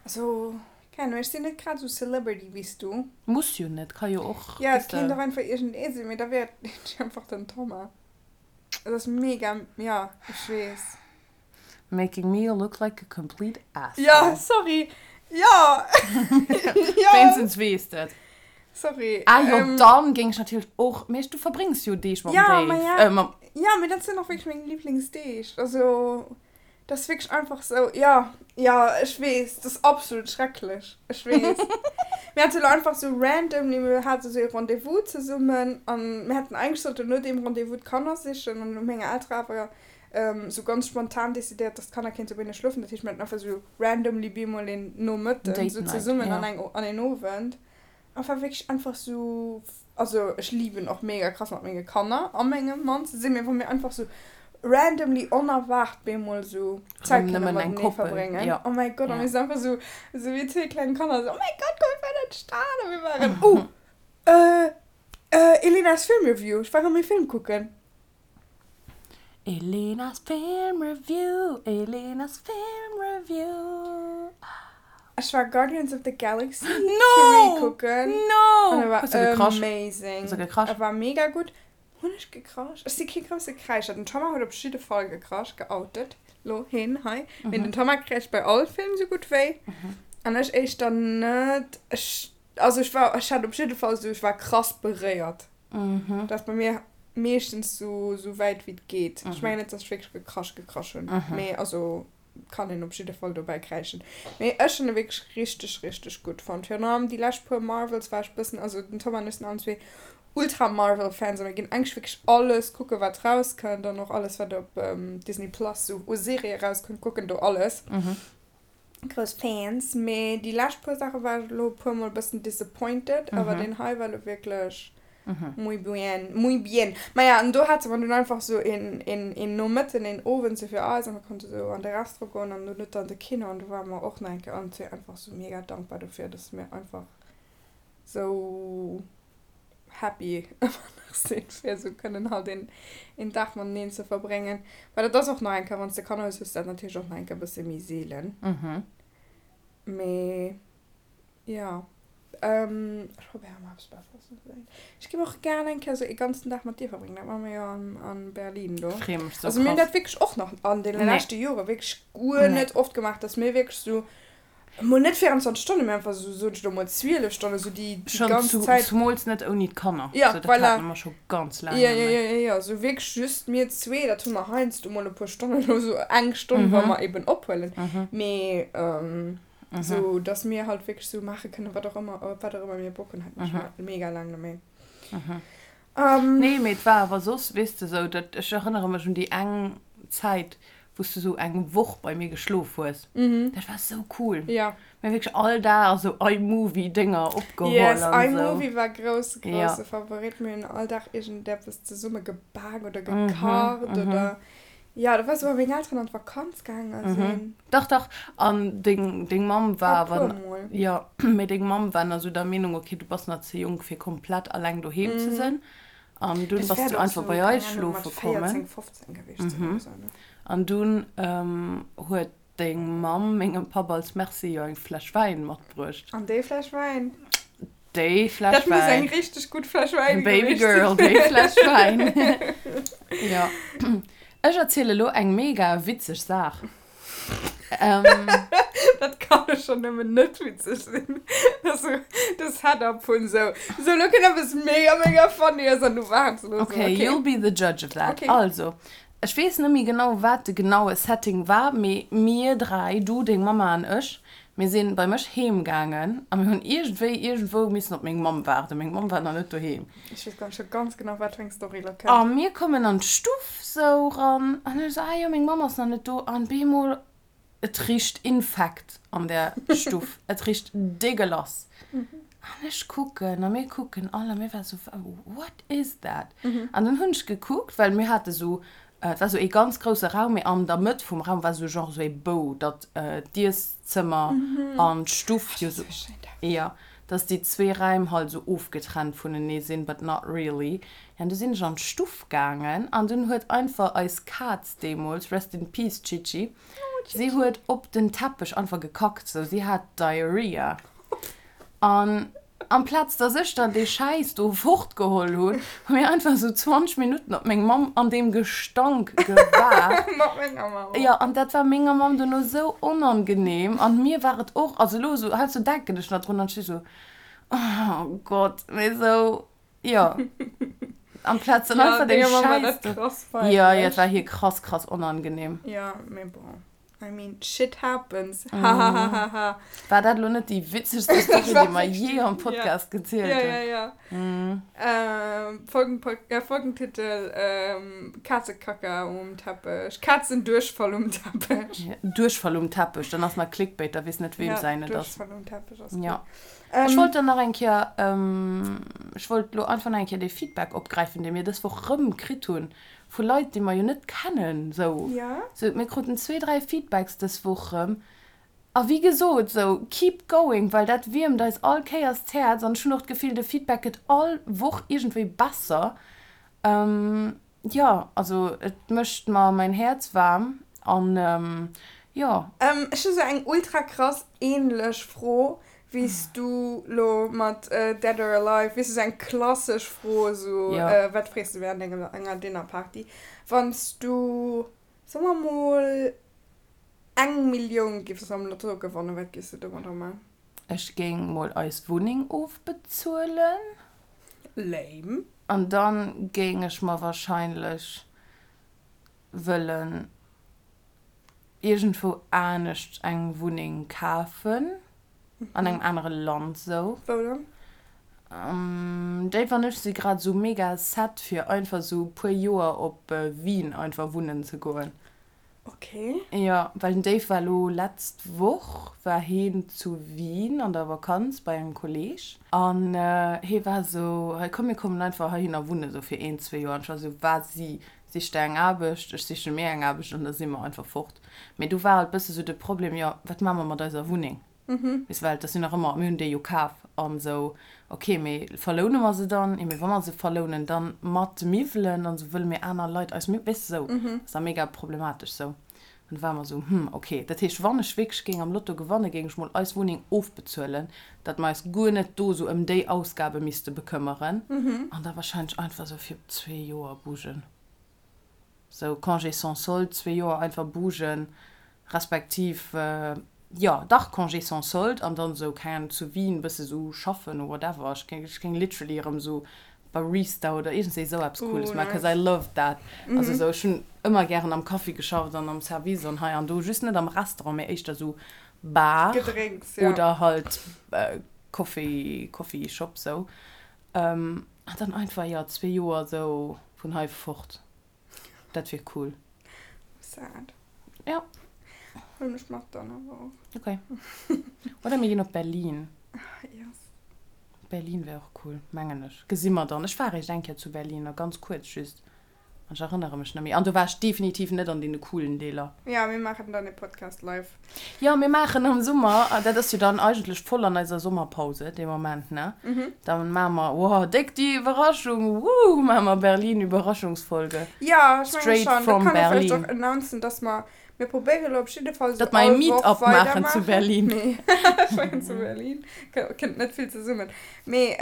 also, keng Ahnung, ech sinn net grad sou Celebrity wéi s du. Muss jo net, ka jo och, Ja, weess et kéint de. och einfach iergendee sinn, mee da wär et einfach den Thomas. Et ass mega, ja, ech weess. Making me look like a complete asshole. Ja, sorry. Ja. ja. Wéinstens weess de et. Sorry. Ah jo, ähm, dann géing ech natierlech och, mee du verbréngs jo Deeg mam ja, Dave. Ma ja, äh, mam ja, mee dat sinn och wierklech meng Liblingsdeeg. Also, dat ass wierklech einfach sou, ja, ja, ech weess, dat ass absolut schrecklech. Ech weess. Mir hate lo einfach sou randomly, mir hate sou ee Rendez-vous zesummen an mir hätten eigentlech sollten no deem Rendez-vous d'Kanner sichen an hu meng Eltere awer sou ganz spontan decidéiert, dass d'Kanner kéinte bei hinne schlofen. Dat heescht, mir haten einfach sou randomly bemol een Nomëtten Date sou Night, zesummen an ja. eng an een Owend. An war wierklech einfach sou, also ech liben och mega krass mat menge Kanner a mengem Mann ze sinn, mee wa mir einfach sou randomly onerwaart bemol sou Zäit Rëm kënne nëmmen eng matenee Koppel, verbréngen. ja. Oh mäi Gott, a Ja. mir sinn einfach sou sou wéi zwee kleng Kanner sou, oh mäi Gott, komm mir fahren an d'Stad a mir waren, oh, äh, äh, Elenas Filmreview, ech war erëm ee Film kucken. Elenas Film Review, Elenas Film Review. Ech war Guardians of the Galaxy 3 No! kucken. No! An e war Hues du gekrasch? amazing. Hues du gekrasch? E war mega gutt. Hunn ech gekrasch? Ech si kee grousse Kräischer. Den Thomas huet op jidde Fall gekrasch, geoutet lo heen hei. Mee den Thomas kräischt bei all Film sou gutt wéi. An ech éischter net. Ech, also ech war, ech hat op jidde Fall sou, ech war krass beréiert. Dat ass bei mir meeschtens sou, sou wäit wéi et geet. Ech mengen net, dass ech wierklech gekrasch gekrasch hunn, mee also kann een op jidde Fall dobäi kräischen. Mee ech hunn e wierklech richteg, richteg gutt fonnt. Virun allem déi lescht puer Marvels war ech bëssen, also den Tom an ech sinn allen zwee ultra Marvel-Fans a mir ginn eigentlech wierklech alles kucken, wat rauskënnt an och alles, wat op Disney Plus sou u Serië rauskënnt, kucken do alles. Grouss Fans, mee déi lescht puer Saache war ech elo e puer mol e bëssen disappointed, awer deen hei war elo wierklech. Muy bien, muy bien. Maja, an do hate mer dunn einfach sou een, een, een Nomëtten, een Owend sou fir eis an mer konnte sou an de Restaurant goen an dono dann de Kino an do ware mer och nach eng Kéier allen zwee einfach sou mega dankbar dofir, dass mir einfach sou happy ëmmer nach sinn, fir sou kënnen halt een, een Dag mateneen ze verbréngen. Well dat ass och nach eng Kéier, wann s de Kanner hues, hues de dat natierlech och nach eng Kéier e bësse méi seelen. Mee. Jo, ech probéieren mol eppes Besseres ze soen. Ech géif och gären eng Kéier esou ee ganzen Dag mat dir verbréngen. Dat maache mir jo an Berlin do. Freeë mech sou Also mir hunn krass. dat wierklech och nach an deene Nee. leschte Jore wierklech guer Nee. net oft gemaach, dass mir wierklech esou, mol net 24 Stonnen, mee einfach esou, soen ech elo mol 12 Stonnen, esou déi déi Schonn ganz zu, Zäit. zumools net ouni d'Kanner. Ja, Sou, dat voilà. hate mer scho ganz laang Jo, net jo, méi. jo, jo, jo, esou wierklech just mir zwee. Dat hu mer heiansdo mol e puer Stonnen oder esou, eng Stonn, wa mer eben ophuelen. Mee. Sou dass mir halt wierklech sou maache kënnen, wat och ëmmer, op wat och ëmmer mir Bock hunn, hat mir scho mega laang net méi. Nee, mee et war awer soss, weess de, sou dat, ech erënnere mech un déi eng Zäit, wou s du sou eng Woch bei mir geschlof hues. Dat war sou cool. Jo. Mir hu wierklech all Dag sou iMovie-Dénger opgeholl Yes, an sou. iMovie war grousse, grousse Favorit. Mir hunn all Dag iergendeppes zesumme gebak oder gekacht oder. Jo, da war sou, wa meng Elteren an d'Vakanz gaange sinn. Dach, dach. An deng, deng Mamm war E awer. puer Mol. Jo, mee deng Mamm war nach sou der Meenung, okay, du bass nach ze jonk, fir komplett alleng doheem ze sinn. An dunn Dat bass wäert du och einfach sou, bei keng eis Ahnung, mat schlofe kommen. 14, 15 gewiescht sinn oder sou, ne? An dunn huet deng Mamm mengem Papp als Merci jo eng Fläsch Wäin matbruecht. An déi Fläsch Wäin? Déi Fläsch Dat muss Wäin. eng richteg gutt Fläsch Wäin Baby gewiescht girl, sinn. déi Fläsch Wäin. Jo. Ech erziele lo eng mega witzeg Saach. Dat kann jo schonn nëmmen net witzeg sinn. Dat ass sou de Setup vun sou, sou lo kënnt eppes mega mega funnyes an du waarts elo sou, Okay, okay. you'll be the judge of that. Okay. Also, ech weess net méi genau, wat de genaue Setting war, mee mir 3, du, deng Mamma an ech, Mir sinn bei mech heem gaangen a mir hunn iergendwéi iergendwou missen op meng Mamm waarden. Meng Mamm war nach net doheem. Ech weess gar scho ganz genau wat fir eng Story lo kënnt. A mir kommen an d'Stuff sou ran an ech sou, ah jo, meng Mamm ass nach net do. An bemol, et richt Infekt an där Stuff. Et richt dégueulasse. An ech kucken a mir kucken all a mir war sou, what is that? An dann hunn ech gekuckt, well mir hate sou Et war sou ee ganz grousse Raum, mee an der Mëtt vum Raum war sou genre sou ee Bou, datt d'Ieszëmmer an d'Stuff jo sou, jo, datt déi zwee Räim halt sou ofgetrennt vunenee sinn, but not really. Jo, an du sinn ech an d'Stuff gaangen an dunn huet einfach eis Kaz deemools, rest in peace Chichi, si huet op den Teppech einfach gekackt, sou, si hat Diarrhea. An amplaz dass ech dann dee Schäiss do fortgeholl hunn, hu mir einfach esou 20 Minutten op meng Mamm an deem Gestank gewaart. Mat menger Mamm. Jo, an dat war menger Mamm duerno esou onangenehm an mir war et och, also elo esou, heiansdo denken ech nach drun an ech si sou, oh Gott, mee esou, jo, amplaz dann Ja, einfach dee denger Mamm war Schäiss dat do. krass Jo, jo, peinlech. et war hir krass, krass onangenehm. Jo, mee bon. I mean, shit happens. Hahahaha. War dat elo net déi witzegste Story, déi mer jee am Podcast gezielt hunn? Ja, ja, ja. Mm. Ähm, Folgen, äh, Folgentitel, ähm, Katzekacka um Teppech. Katzendurchfall um Teppech. Ja, Duerchfall um Teppech, dann ass nach Clickbait, da weess net, weem ja, säin et ass. Duerchfall um Teppech ass Ja. Ähm, ech wollt dann nach eng Kéier, ähm, ech wollt elo einfach nach eng Kéier dee Feedback opgräifen, dee mir dës Woch rëm kritt hunn. Vu Leit, déi mer jo net kennen, sou. Ja. Sou, mir kruten zwee, dräi Feedbacks dës Woch rëm. A wéi gesot, sou, keep going, well dat wiermt eis all Kéiers d'Häerz. An ech hunn och d'Gefill, de Feedback gëtt all Woch iergendwéi besser. Jo, also et mécht mer mäin Häerz waarm. An jo. Ech hu sou eng ultra krass ähnlech Fro wéi s du lo mat Dead or Alive, weess du, sou eng klassesch Fro, sou wat frees du während enger enger Dinnerparty, wann s du, soe mer mol, eng Millioun giffs am Lotto gewannen, wat giffs du domadder man? Ech géing mol eis Wunneng ofbezuelen. Lame. An dann géing ech mer wahrscheinlech wëllen iergendwou anescht eng Wunneng kafen, an engem anere Land sou. Wou dann? Dave an ech si grad sou mega set fir einfach sou puer Joer op Wien einfach wunnen ze goen. Okay. Jo, well den Dave war elo letzt Woch war heen zu Wien an der Vakanz bei engem Kolleg an hee war esou, hei komm mir kommen einfach heihinner wunnen esou fir een, zwee Joer an ech war esou, wat si sich der eng Aarbecht, ech siche mir eng Aarbecht an da si mer einfach fort. Mee do war halt bësse sou de Problem, jo wat maache mer mat eiser Wunneng? Weess well dat sinn nach ëmmer, mir hunn déi jo kaf an esou, ok, mee verloune mer se dann? Jo, mee wa mer se verlounen, dann mat Miwwelen an esou, wëlle mir aner Leit eis Miwwelen, weess de esou, ass da mega problematesch esou. An da ware mer esou, hm, ok, dat heescht, wann ech wierklech géing am Lotto gewannen, géing ech mol eis Wunneng ofbezuelen, datt mer eis guer net do esou ëm déi Ausgabe misste bekëmmeren an da wahrscheinlech einfach esou fir zwee Joer bougen. Sou Congé sans solde, zwee Joer einfach bougen, respektiv, jo dach Congé sans solde an dann sou, keng Ahnung, zu Wien bësse sou schaffen or whatever. Ech géing, ech géing literally erëm sou Barista oder iergendswéi sou eppes Cooles maachen, cause I love that. Also sou, ech hunn ëmmer gären am Kaffi geschafft an am Service an hei an do, just net am Restaurant, mee éischter sou Bar Gedrénks, ja. oder halt Coffee, Coffee Shop sou. An dann einfach, jo, zwee Joer sou vun hei fort. Dat wier cool. Sad. Ja. Huel mech mat dann awer och. Okay. Oder mir ginn op Berlin. Yes. Berlin wär och cool, mengen ech. Gesi mer dann. Ech war eréischt eng Kéier zu Berlin, a ganz kuerz just. An ech erënnere mech net méi. An do war ech definitiv net an deene coolen Deeler. Ja, mir maachen dann e Podcast live. Jo, mir maachen am Summer, dat ass jo dann eigentlech voll an eiser Sommerpause dee Moment, ne? Da maache mer, wow, déck déi Iwwerraschung, wouh, maache mer Berlin-Überraschungsfolge. Jo, ech menge Straight schonn. Da from kann ee vläicht Berlin. och announcen, dass mer, mir probéiere lo op jidde Fall esou Datt mer e all Woch Meet-up maachen zu weidermaachen. Berlin. Nee, ech mengen zu Berlin kënnt net vill zesummen. Mee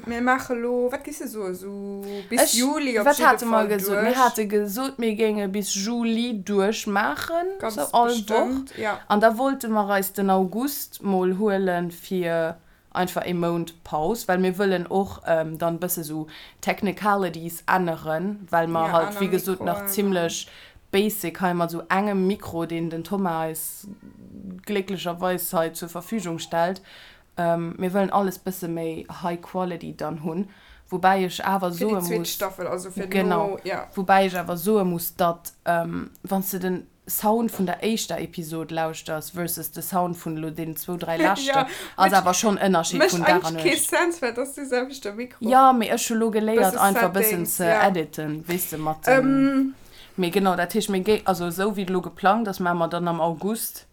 Mir maache lo, wat géifs de soen, esou bis Ech, Juli op wat jidde hate mer Fall gesot? Mir duerch. hate gesot, mir géinge bis Juli duerchmaachen, Ganz sou all Woch. bestëmmt, ja. An da wollte mer eis den August mol huele fir einfach ee Mount Paus, well mir wëllen och dann bësse sou Technicalities änneren, well mer Ja, halt, aner wéi gesot, nach Mikroen an. zimlech basic hei mat sou engem Mikro, deen den Thomas eis glécklecherweis hei zur Verfügung stellt, Mir wëllen alles bësse méi high quality dann hunn, woubäi ech awer Fir déi soe zweet muss, Staffel, also fir genau, no, ja. woubäi ech awer soe muss, datt wann s de den Sound vun der éischter Episod lauschters versus de Sound vun elo deenen zwou, dräi leschten, Ja, ass which awer schonn Ënnerscheed mécht vun Dag an eigentlech kee Nuecht. Sense, well et ass dee selwechte Mikro. Jo, mee ech hu lo geléiert Bësse einfach bëssen Settings, ze ja. editen, weess de, mat dem, mee genau, dat heescht mir géi, also esou wéi et elo geplangt ass, maache mer dann am August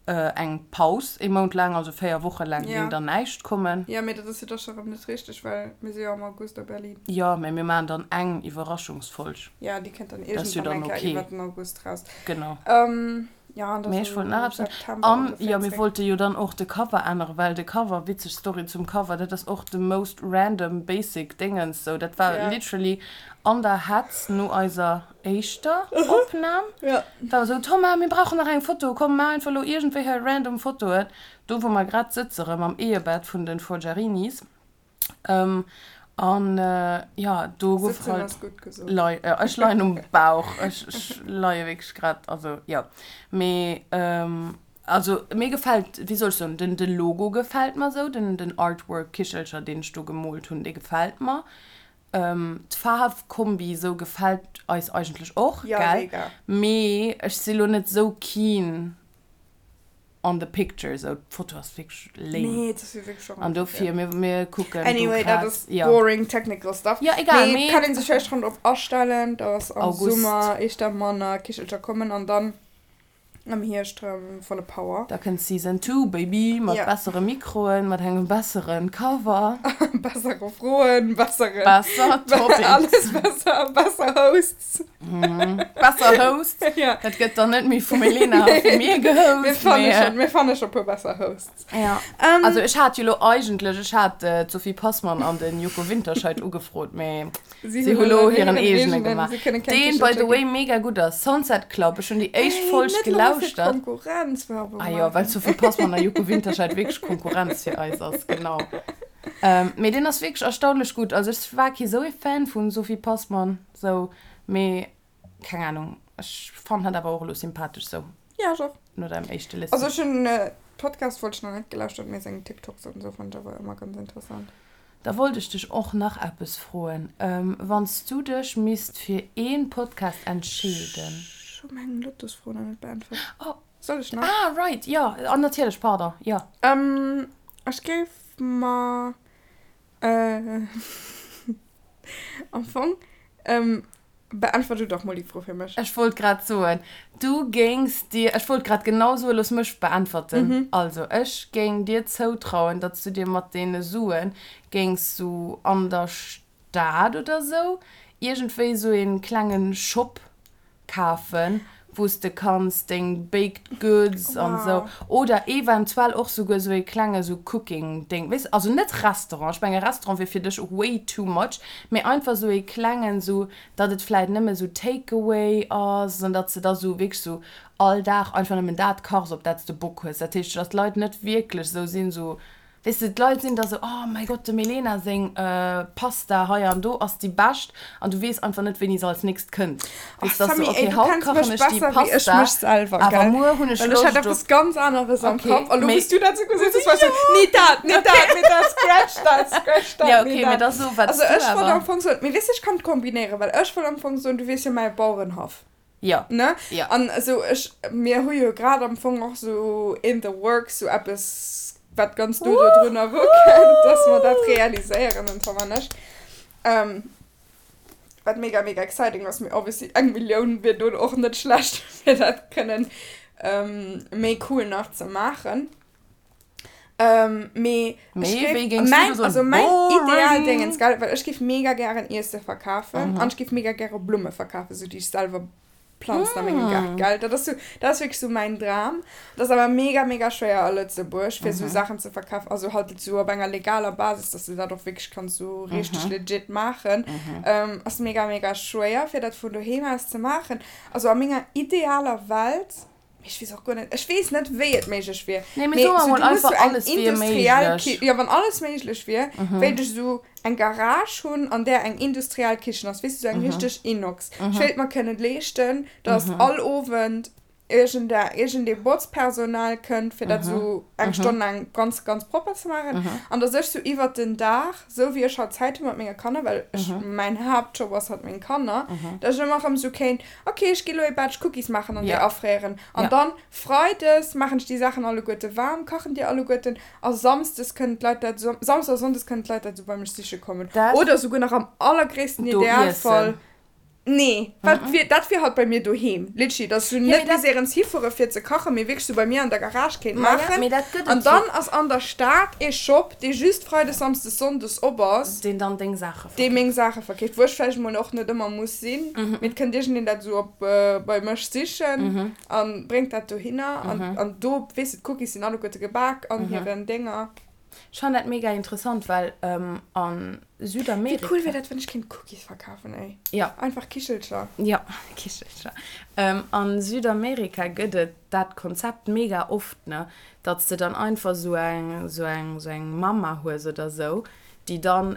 Eng Paus, ee Mount laang, also 4 Woche laang géing dann näischt kommen. Jo, mee dat ass jo da scho rëm net richteg, well mir si jo am August a Berlin. Jo, mee mir maachen dann eng Iwwerraschungsfolg. Jo, déi kënnt dann iergendwann eng Kéier iwwer den August raus. Genau. Jo, an da Mee ech sou wollt nach eppes soen. September An, ongeféier jo, mir zréck. wollte jo dann och de Cover änneren, well de Cover, witzeg Story zum Cover, dat ass och de most random basic Déngens, sou, dat war literally an der Hetz no eiser éischter Opnahm Ja. war esou, Thomas, mir brauchen nach eng Foto, komm maach einfach elo iergendwéi hei random Fotoen, do wou mer grad sëtze rëm am Ehebett vun den Forgiarinis. An jo, do gouf Sëtzen halt ass gutt gesot. lei, jo ech leien um Bauch, ech ech leie wierklech grad, also jo. Mee also mir gefält, wéi soll ech soen, den de Logo gefält mer esou, den den Artwork Kichelcher deen ech do gemoolt hunn, dee gefält mer. D'Faarfkombi sou gefällt eis eigentlech och, Ja, gell? mega. Mee ech si lo net sou keen on the picture, sou d'Foto ass wierklech lame. Nee, dat ass jo wierklech och An dofir, mir, mir kucken do Anyway, dat grad, ass ja. boring technical stuff. Ja, egal, Mee mee kann een sech vläicht schonn drop astellen, dass am August. Summer éischter manner Kichelcher kommen an dann Am Hierscht rëm volle Power. Da kënnt Season 2, Baby, mat Ja. bessere Mikroen, mat engem besseren Cover. Bessere Froen, bessere. Besser Topics. Alles besser, besser Hosts. Besser Hosts. Ja. Dat gëtt dann net méi vum Elena a vu mir gehost. Mir fanne mee, schon, mir fanne schon e puer besser Hosts. Ja. Ähm, Also ech hat jo lo eigentlech, ech hat d'Sophie Passmann an den Joko Winterscheidt ugefrot, mee. Si Si hunn hu lo elo hiren hiren eegene eegenen, gemaach. si kënne keng Deen, by Kichelcher the way, ginn. mega gutt ass. Sunset Club, ech hunn déi éischt Ey, Folg net elo fir gelauschtert. Konkurrenzwerbung Ah jo, well maachen. Sophie Passmann a Joko Winterscheidt wierklech Konkurrenz fir eis ass, genau. Mee deen ass wierklech erstaunlech gutt. Also ech war kee sou ee Fan vu Sophie Passmann, sou, mee keng Ahnung, ech fannen hatt awer och elo sympathesch sou. Ja, ech och. No deinem éischte Listen. Also ech hunn Podcast wollt ech nach net gelauschtert, mee seng TikToks an esou fannen ech awer ëmmer ganz interessant. Da wollt ech dech och nach eppes froen. Wann s du dech misst fir een Podcast entscheeden. Ech hu meng Lottosfro nach net beäntwert. Oh. Soll ech nach? Ah, right, jo, an natierlech, pardon, jo. Ech géif mer am Fong, beäntwert du dach mol déi Fro fir mech. Ech wollt grad soen, du géings dir, ech wollt grad genau soen, looss mech beäntwerten. Also, ech géing dir zoutrauen, datt s du dir mat deene Sue géings sou an der Stad oder sou iergendwéi sou ee klenge Shop kafen, wou s de kanns deng Baked Goods an sou, oder eventuell och souguer sou ee klenge sou Cooking Ding, weess, also net Restaurant, ech menge Restaurant wier fir dech way too much, mee einfach sou ee klengen, sou datt et vläit nëmme sou Take away ass an datt s de da sou wierklech sou all Dag einfach nëmmen dat kachs op dat s de Bock hues, dat heescht datt d'Leit net wierklech sou sinn sou Weess de, d'Leit sinn da sou, oh mäi Gott, dem Elena seng Pasta hei an do ass déi bescht an du weess einfach net, wéini se als nächst kënnt. Weess, dass sou, okay, haut kachen ech déi Pasta, awer muer hunn ech Loscht op. Okay, mee. Ja, okay, mee da so, wat s du awer. Jo. Ne? Jo. An esou ech, mir hu jo grad am Fong och sou in the works sou eppes, wat ganz no do drun erukënnt, dass mer dat realiséieren, den Tom an ech. Ähm, wat mega, mega exciting ass, mee obviously eng Millioun wier do och net schlecht, fir dat kënnen méi cool nach ze maachen. Ähm, mee Mee ech géif, wéi géings du mäin, do soen, also mäin boring? Idealdéngens, gell, well ech géif mega gären Iesse verkafen an ech géif mega gäre Blumme verkafen, sou déi ech selwer planzen a mengem Gaart, gell. Dat ass sou, dat ass wierklech sou mäin Dram. Dat ass awer mega, mega schwéier a Lëtzebuerg, fir sou Saachen ze verkafen, also halt sou op enger legaler Basis, dass de dat och wierklech kanns sou richteg legit maachen, ass mega, mega schwéier, fir dat vun doheem aus ze maachen. Also a menger idealer Welt Mee ech weess och guer net, ech weess net wéi et méiglech wier. Nee, mee soe mer sou, mol du muss einfach, sou eng alles wier industriell méiglech. Ki, jo wann alles méiglech wier, wéilt ech sou eng Garage hunn an där eng industriell Kichen ass, weess du, sou eng richteg Inox. Ech wéilt mer kënnen leeschten, dass all Owend iergende iergendee Botzpersonal kënnt, fir dat sou eng Stonn laang ganz ganz propper ze maachen an dass ech sou iwwert den Dag, sou wéi ech halt Zäit hu mat menge Kanner, well ech mäin Haaptjob ass halt meng Kanner, dass ech ëmmer erëm sou kéint, Ok, ech gi lo ee Batch Cookies maachen an déi afréieren. An dann Freides maachen ech déi Saachen alleguerte waarm, kachen déi alleguerten a Samsdes kënnen d'Leit dat, Samsdes a Sonndes kënnen d'Leit dat esou bei mech siche kommen. Oder esouguer nach am allergréissten Idealfall, nee, wat wier, dat wier halt bei mir doheem, literally, dass ech net bis éierens hifuere fir ze kachen, mee wierklech esou bei mir an der Garage kéint maachen. An dann ass an der Stad ee Shop, dee just Freides, Samsdes, Sonndes op ass. Deen dann deng Saache Dee meng Saache verkeeft, wou ech vläicht emol och net ëmmer muss sinn, mee et kënnt iergendeen dat esou op bei mech sichen a bréngt dat dohinner. An do, weess de, d'Cookies sinn alleguerte gebak an hiren Dénger. Ech fannen dat mega interessant, well a Südamerika. Wéi cool wier dat, wann ech kéint Cookies verkafen, ey? Jo. Einfach Kichelcher. Jo, Kichelcher. A Südamerika gëtt et dat Konzept mega oft, ne, datt s de dann einfach esou eng, esou eng, esou eng Mama hues oder esou, déi dann,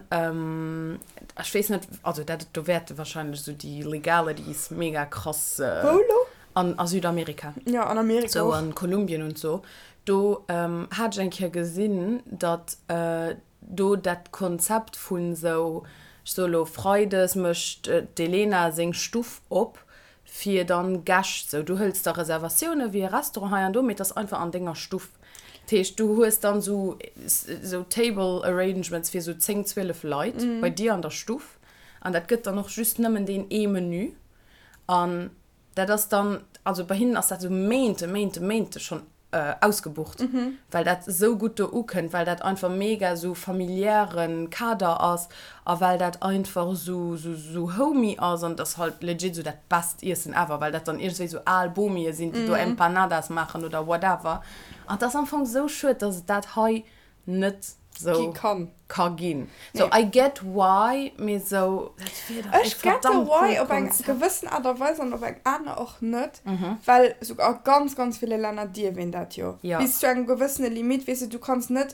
ech weess net, also dat, do wäerte wahrscheinlech esou déi Legalities mega krass. Wou elo? An a Südamerika. Ja, an Amerika och. Sou an Kolumbien und so. Do hat ech eng Kéier gesinn, datt do dat Konzept vun esou, ech soe lo, Freides mécht d'Elena seng Stuff op fir dann Gäscht, sou du hëls da Reservatioune wéi e Restaurant hei an do, mee et ass einfach an denger Stuff. Dat heescht, du hues dann sou sou Table Arrangements fir sou 10, 12 Leit bei dir an der Stuff an dat gëtt dann och just nëmmen deen ee Menü an dat ass dann, also bei hinnen ass dat sou Méinte, Méinte, Méinte schonn ausgebucht, well dat esou gutt do ukënnt, well dat einfach mega esou familiäre Kader ass a well dat einfach esou esou homey ass an et ass halt legit esou dat best Iessen ever, well dat dann iergendwéi esou al Bomie sinn, déi do Empanadas maachen oder whatever. An et ass am Fong esou schued, dass et dat hei net sou ka ginn. So I get why, mee sou dat wier dach ee Ech get de verdammt why coolt op eng Konzept. gewëssen Aart a Weis an op eng aner och net, well sou a ganz ganz ville Länner dierf een dat jo Ja. bis zu engem gewëssene Limit, weess de, du kanns net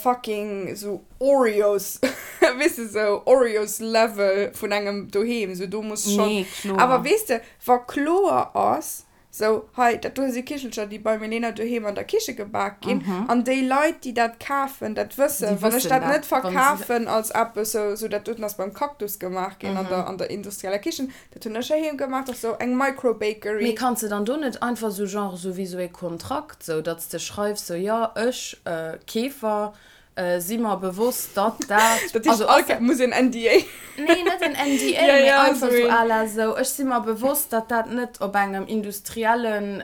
fucking sou Oreos, weess de, sou Oreos Level vun engem doheem, sou do muss schonn, Nee, kloer. awer weess de, wa kloer ass. Sou, hei, dat do si Kichelcher, déi bei Milena doheem an der Kiche gebak ginn. An déi Leit, déi dat kafen, dat wëssen. Wann ech dat net verkafen als eppes, sou, sou dat doten ass beim Cactus gemaach ginn an der, an der industrieller Kichen, dat hunn ech heiheem gemaach, dat ass sou eng Microbakery. Mee kanns de dann do net einfach sou genre sou wéi sou ee Kontrakt, sou datt s de schreifs, sou, jo, ech, Keefer, Si mer bewosst, datt dat. Dat heescht, all Kéier muss een NDA. Nee, net en NDA, mee einfach esou à la esou, ech si mer bewosst, datt dat net op engem industriellen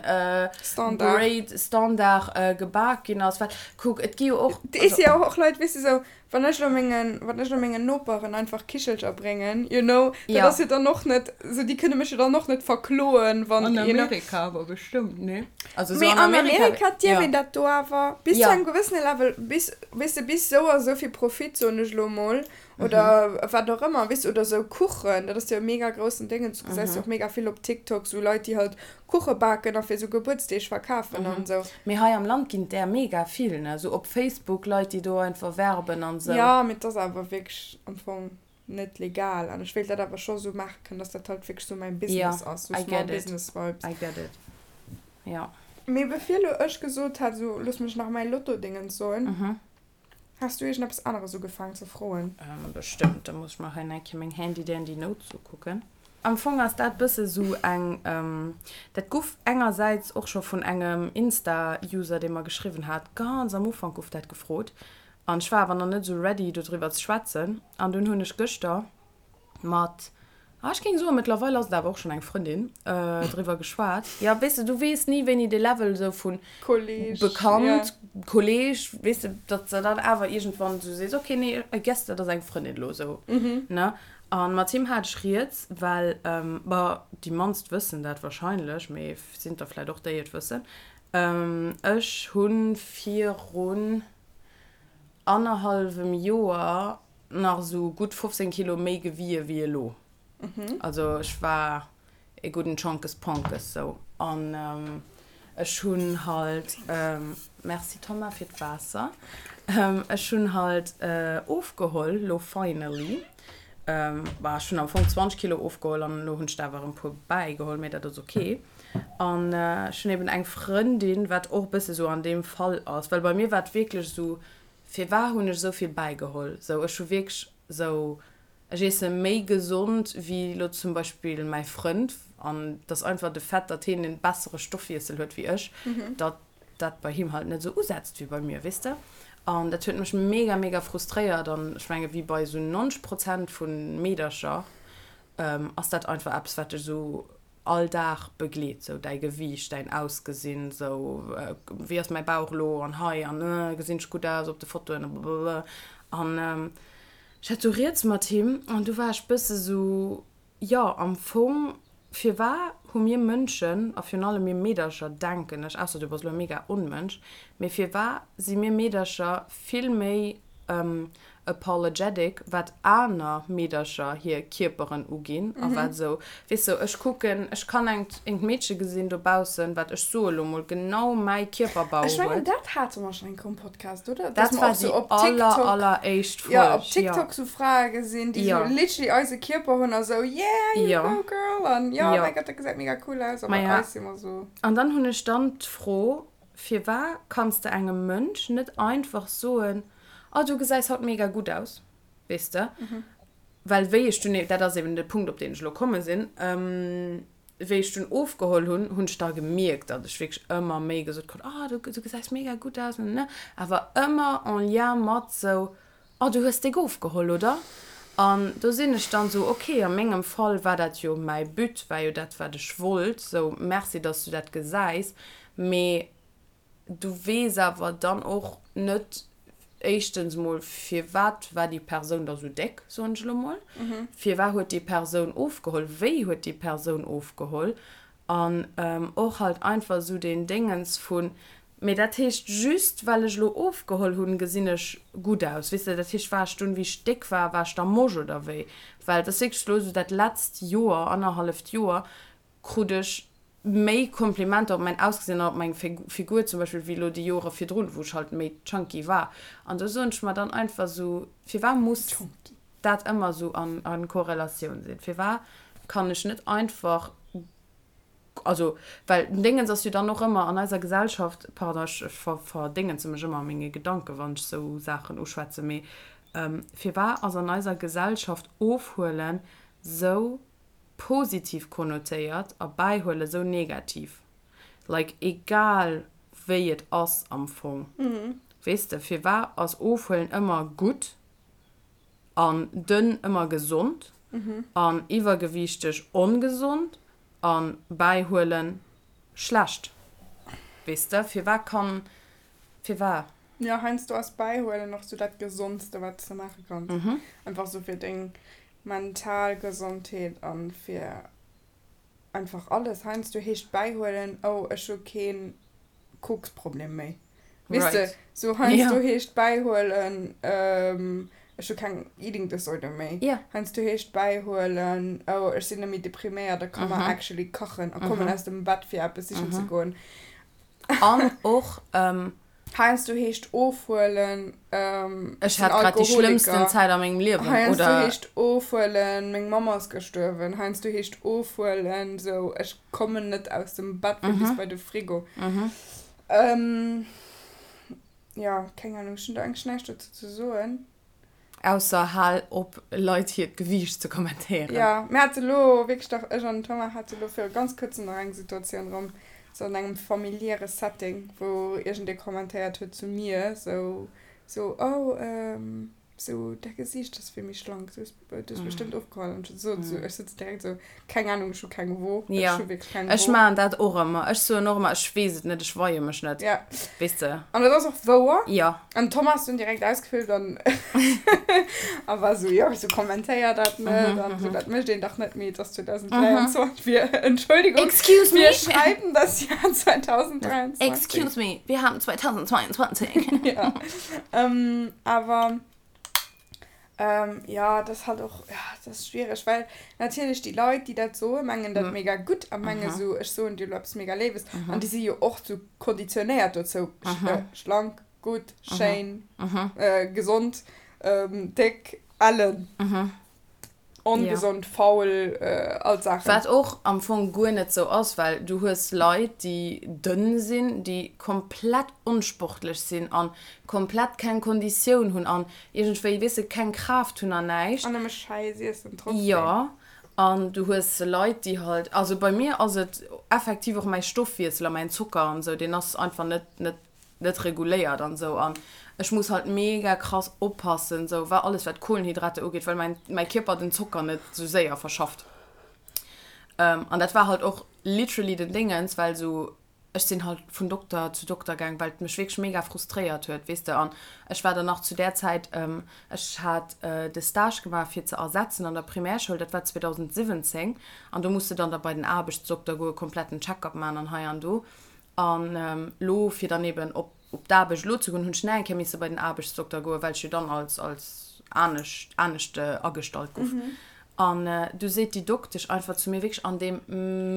Grade, Standard gebak ginn ass. Well kuck, et gi jo och. Et si jo och Leit, weess de, esou, wann ech elo mengen, wann ech elo mengen Noperen einfach Kichelcher bréngen, you know, dat ass jo dann och net, esou, déi kënne mech jo dann och net verkloen, wann, you know. An Amerika awer bestëmmt, nee? Also so Mee an Amerika, Amerika dierf een dat do awer bis ja. zu engem gewëssene Level, bis, weess de, bis sou a sou vill Profit, soen ech elo mol, oder mhm. wat och ëmmer, weess de, oder sou Kuchen, dat ass jo e mega groussen Déngen, du gesäis mhm. jo och mega vill op TikTok sou Leit, déi halt Kuche baken a fir sou Gebuertsdeeg verkafen mhm. an sou. Mee hei am Land ginn där mega vill, ne, sou op Facebook Leit, déi do einfach werben an sou. Ja, mee 't ass awer wierklech am Fong. net legal an ech wéilt dat awer scho sou maache kënnen, dass dat halt wierklech sou mäin Business ass, sou Small Business Vibes. I get it, ja. Mee bevir lo ech gesot hat, sou looss mech nach mäi Lotto-Dingens soen, has du iergendeppes aneres ugefaangen ze froen? Bestëmmt, da muss ech mer hei nach eng Kéier meng handy dandy Notes ukucken. Am Fong ass dat bësse sou eng, dat guff engersäits och scho vun engem Insta-User, dee mer geschriwwen hat, ganz am Ufank guff dat gefrot, An ech war awer nach net esou ready dodriwwer ze schwätzen. An dunn hunn ech gëschter mat, ah ech géing soen, mëttlerweil ass et awer och schonn eng Frëndin, driwwer geschwat. Jo, weess de, du weess ni wéini de Level esou vu Kolleg, Bekannt, Kolleg, weess de, datt s de dann awer iergendwann esou sees, okay, nee, I guess dat ass eng Frëndin elo esou, ne? A mat him hat ech rieds, well, bon, déi mannst wëssen dat wahrscheinlech, mee sinn der vläicht och déi et wëssen, ech hu virun annerhallwem Joer nach esou gutt 15 Kilo méi gewie wéi elo. Also ech war e gudden Chonkes Ponkes sou. An ech hunn halt, Merci Thomas fir d'Waasser, ech hunn halt ofgeholl lo finally. Bah ech hunn am Fong 20 Kilo ofgeholl an elo hunn ech der awer erëm e puer bäigeholl, mee dat ass ok. An ech hunn eben eng Frëndin, wat och e bësse sou an deem Fall ass, well bei mir war et wierklech esou, firwar hunn ech esou vill bäigeholl? Sou ech hu wierklech sou, ech iesse méi gesond wéi elo zum Beispill mäi Frënd an et ass einfach de Fait, datt hien e bessere Stoffwiessel huet wéi ech, datt dat bei him halt net esou usetzt wéi bei mir, weess de? An dat huet mech mega, mega frustréiert an ech menge wéi bei esou 90 Prozent vu Meedercher ass dat einfach eppes, wat dech esou all Dag begleet, sou däi Gewiicht, däin Ausgesinn, sou wéi ass mäi Bauch elo an hei an gesinn ech gutt aus op de Fotoen a blablabla. An ech hat sou rieds mat him an du war ech bësse sou, jo am Fong firwar hu mir Mënschen a virun allem mir Meedercher denken ech, ausser du bass elo e mega Onmënsch, mee firwar si mir Meedercher vill méi apologetic wat aner Meedercher hir Kierperen uginn a wat esou, weess de, ech kucken, ech kann engt engt Meedche gesinn dobaussen, wat, ech soe lo mol, genau mäi Kierperbau Ech mengen, huet. dat hate mer schonn eng Kéier um Podcast, oder? Dass Dat mer war och sou déi op aller, TikTok, alleréischt jo, op Folg, jo. TikTok sou Frae gesinn, déi sou Jo. literally eise Kierper hunn a sou, yeah, you Jo. go girl an jo, Jo. mäi Gott, dat gesäit mega cool aus a bei Maja, eis si mer sou. an dann hunn ech dann d'Fro, Firwar kanns de engem Mënsch net einfach soen, Oh, du gesäis haut mega gutt aus, weess de? Well wéi ech dunn, dat ass eben de Punkt, op deen ech elo komme sinn, wéi ech dunn ofgeholl hunn, hunn ech da gemierkt, datt ech wierklech ëmmer méi gesot krut, Oh, du gesäis mega gutt aus, ne? Awer ëmmer en lien mat sou, Oh, du hues déck ofgeholl, oder? An do sinn ech dann sou, ok, a mengem Fall war dat jo mäi But, war jo dat, wat ech wollt, sou, merci, dass du dat gesäis, mee du weess awer dann och net, éischtens mol, firwat war déi Persoun da sou déck, soen ech elo mol, firwat huet déi Persoun ofgeholl, wéi huet déi Persoun ofgeholl, an och halt einfach sou deen Déngens vun, Mee dat heescht, just well ech elo ofgeholl hunn, gesinn ech gutt aus, weess de? Dat heescht, war ech dunn, wéi ech déck war, war ech da mosch oder wéi? Well et ass wierklech elo esou, dat letzt Joer, annerhalleft Joer, krut ech méi Komplimenter op mäin Ausgesinn an op meng Figur zum Beispill, wéi elo déi Jore virdrun, wou ech halt méi chunky war. An do soen ech mer dann einfach esou, firwat muss dat ëmmer esou a Korrelatioun sinn? Firwat kann ech net einfach. Also, well den Déngens ass jo dann och ëmmer an eiser Gesellschaft, pardon, ech verdéngenze mech ëmmer a menge Gedanken, wann ech esou Saachen uschwätzen, mee firwat ass an eiser Gesellschaft Ofhuelen esou positiv konnotéiert a Bäihuelen esou negativ? Like, egal wéi et ass am Fong, weess de, firwat ass Ofhuelen ëmmer gutt an dënn ëmmer gesond an iwwergewiichteg ongesond an bäihuelen schlecht? Weess de, firwat kann, firwat? Jo, heiansdo ass bäihuelen och sou dat Gesondste wat s de maache kanns. Einfach sou fir deng mental Gesondheet an fir einfach alles. Heiansdo heescht bäihuelen, oh ech hu keen Koksproblem méi. Weess de, sou heiansdo heescht bäihuelen, ech hu keng Eating Disorder méi. Heiansdo heescht bäihuelen, oh ech sinn net méi depriméiert a ka mer actually kachen a kommen aus dem Bett fir eppes sichen ze goen. An och. Heiansdo heescht ofhuelen, ech sinn Ech hat grad déi schlëmmsten Alkoholiker. Zäit a mengem Liewen, Heiansdo oder? heescht ofhuelen, meng Mamm ass gestuerwen. Heiansdo heescht ofhuelen, sou ech kommen net aus dem Bett fir bis bei de Frigo. Jo, keng Ahnung, ech hunn do eigentlech näischt dozou ze soen. Ausser hal op Leit hiert Gewiicht ze kommentéieren. Jo, mir hate lo wierklech dach, ech an den Thomas hate lo viru ganz kuerzem nach eng Situatioun erëm, sou an engem familiäre Setting, wou iergendee kommentéiert huet zu mir, sou, sou, oh, sou, däi Gesiicht ass vill méi schlank, du hues, du hues bestëmmt ofgeholl. An ech sot sou, ech sëtz direkt sou, keng Ahnung, ech hu keng Wo, ech hu wierklech keng Wo. Ech maachen dat och ëmmer, ech soen och ëmmer, ech weess et net, ech weie mech net, weess de. An dat ass och wouer. Jo. An Thomas dunn direkt ausgeflippt an a war sou, jo, wisou kommentéier dat net an sou, dat mécht een dach net méi, et ass 2023, wir, Entschuldigung, Excuse me. wir schreiben das Jahr 2023. Excuse me, wir haben 2022. Ja, awer Jo, dat ass halt och, ja, dat ass schwiereg, well natierlech déi Leit, déi dat soen, mengen dat mega gutt a mengen esou, ech soen dir elo eppes mega Léiwes. An déi si jo och sou konditionéiert dozou, schlank, gutt, schéin, gesond, déck, ellen. Ongesond, faul, all d'Saachen. Wat och am Fong guer net sou ass, well du hues Leit, déi dënn sinn, déi komplett onsportlech sinn an komplett keng Konditioun hunn an iergendwéi, weess de, keng Kraaft hunn an näischt. An nëmme Schäiss iessen trotzdem. Jo, an du hues Leit, déi halt, also bei mir ass et effektiv och mäi Stoffwiessel a mäin Zocker an esou, deen ass einfach net, net net reguléiert an sou an ech muss halt mega krass oppassen sou wa alles wat Kohlenhydrate ugeet, well mäin mäi Kierper den Zocker net sou séier verschafft. An dat war halt och literally den Déngens, well sou ech sinn halt vun Dokter zu Dokter gaang, well et mech wierklech mega frustréiert huet, weess de. An ech war dann nach zu där Zäit, ech hat de Stage gemaach fir ze ersetzen an der Primärschoul, dat war 2017 an do muss de dann da bei den Aarbechtsdokter goe kompletten Check-up man an hei an do. An elo, fir dann eben op op d'Aarbecht elo ze goen, hunn ech nach eng Kéier misse bei den Aarbechtsdokter goen, well ech jo dann als als anescht anescht agestallt gouf. An du seet déi Doktesch einfach zu mir, wierklech an deem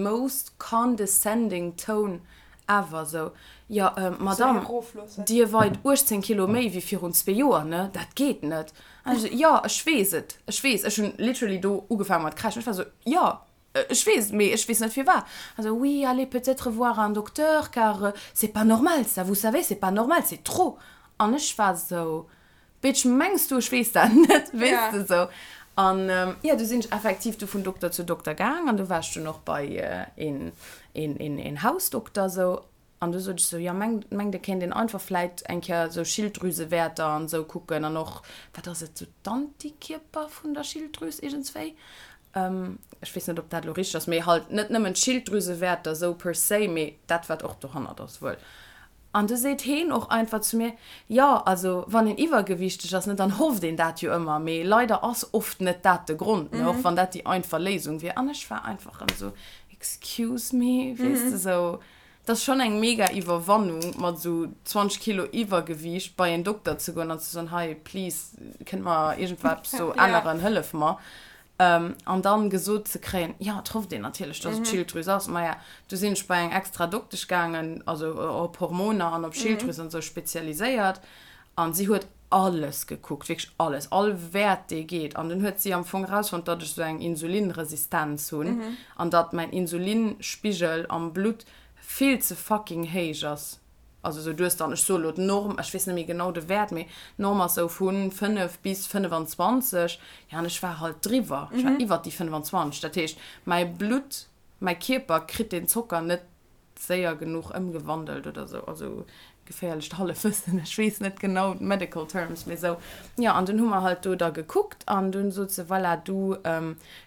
most condescending tone ever, sou, Jo, Madame, Dir weit 18 Kilo méi wéi virun zwee Joer, ne? Dat geet net. An ech sou, Jo, ech weess et, ech weess. Ech hunn literally do ugefaange mat kräischen. Ech war sou, Jo, Ech weess, mee ech weess net firwat. Also, oui, allez peut-être voir un docteur, car c'est pas normal ça, vous savez, c'est pas normal, c'est trop. An ech war sou, Bitch, mengs du, ech weess dat net, weess de, sou. An jo, du sinn ech effektiv du vun Dokter zu Dokter gaang an du war ech dunn och bei een, een, een, een Hausdokter, sou. An du sot ech sou, jo, mengt, mengt et kéint een einfach vläit eng Kéier sou Schilddrüsewäerter an esou kucken an och, wat ass et, sou d'Antikierper vun der Schilddrüs iergendswéi. Ech weess net, ob dat elo richteg ass, mee halt net nëmmen d'Schilddrüsewäerter sou per se, mee dat, wat och dohannert ass wuel. An du seet heen och einfach zu mir, jo, also wann een iwwergewiichteg ass, ne, dann hofft een dat jo ëmmer, mee leider ass oft net dat de Grond, ne, och wann dat déi einfach Léisung wier. An ech war einfach erëm sou, excuse me, weess de, sou. Et ass schonn eng mega Iwwerwannung, mat esou 20 Kilo Iwwergewiicht bei en Dokter ze goen an ze soen, hei, please, kënnt mer iergendwat do änneren, hëllef mer. An dann gesot ze kréien, jo, et hofft een natierlech, dass et d'Schilddrüs ass. Maja, du sinn ech bei eng extra Doktesch gaangen, also op Hormoner an op Schilddrüs an esou spezialiséiert. An si huet. alles gekuckt, wierklech alles, all Wäert dee geet. An dunn huet si am Fong erausfonnt, datt ech sou eng Insulinresistenz hunn an datt mäin Insulinspigel am Blutt vill ze fucking héich ass. Also sou du hues dann, ech soe lo d'Norm, ech weess net méi genau de Wäert, mee d'Norm ass sou vu 5 bis 25, jo an ech war halt driwwer, ech war iwwert déi 25. Dat heescht mäi Blutt, mäi Kierper kritt deen Zocker net séier genuch ëmgewandelt oder sou, also geféierlecht Hallefwëssen, ech weess net genau d'medical terms, mee sou, jo, an dunn hu mer halt do da gekuckt an dunn sot se, voilà, du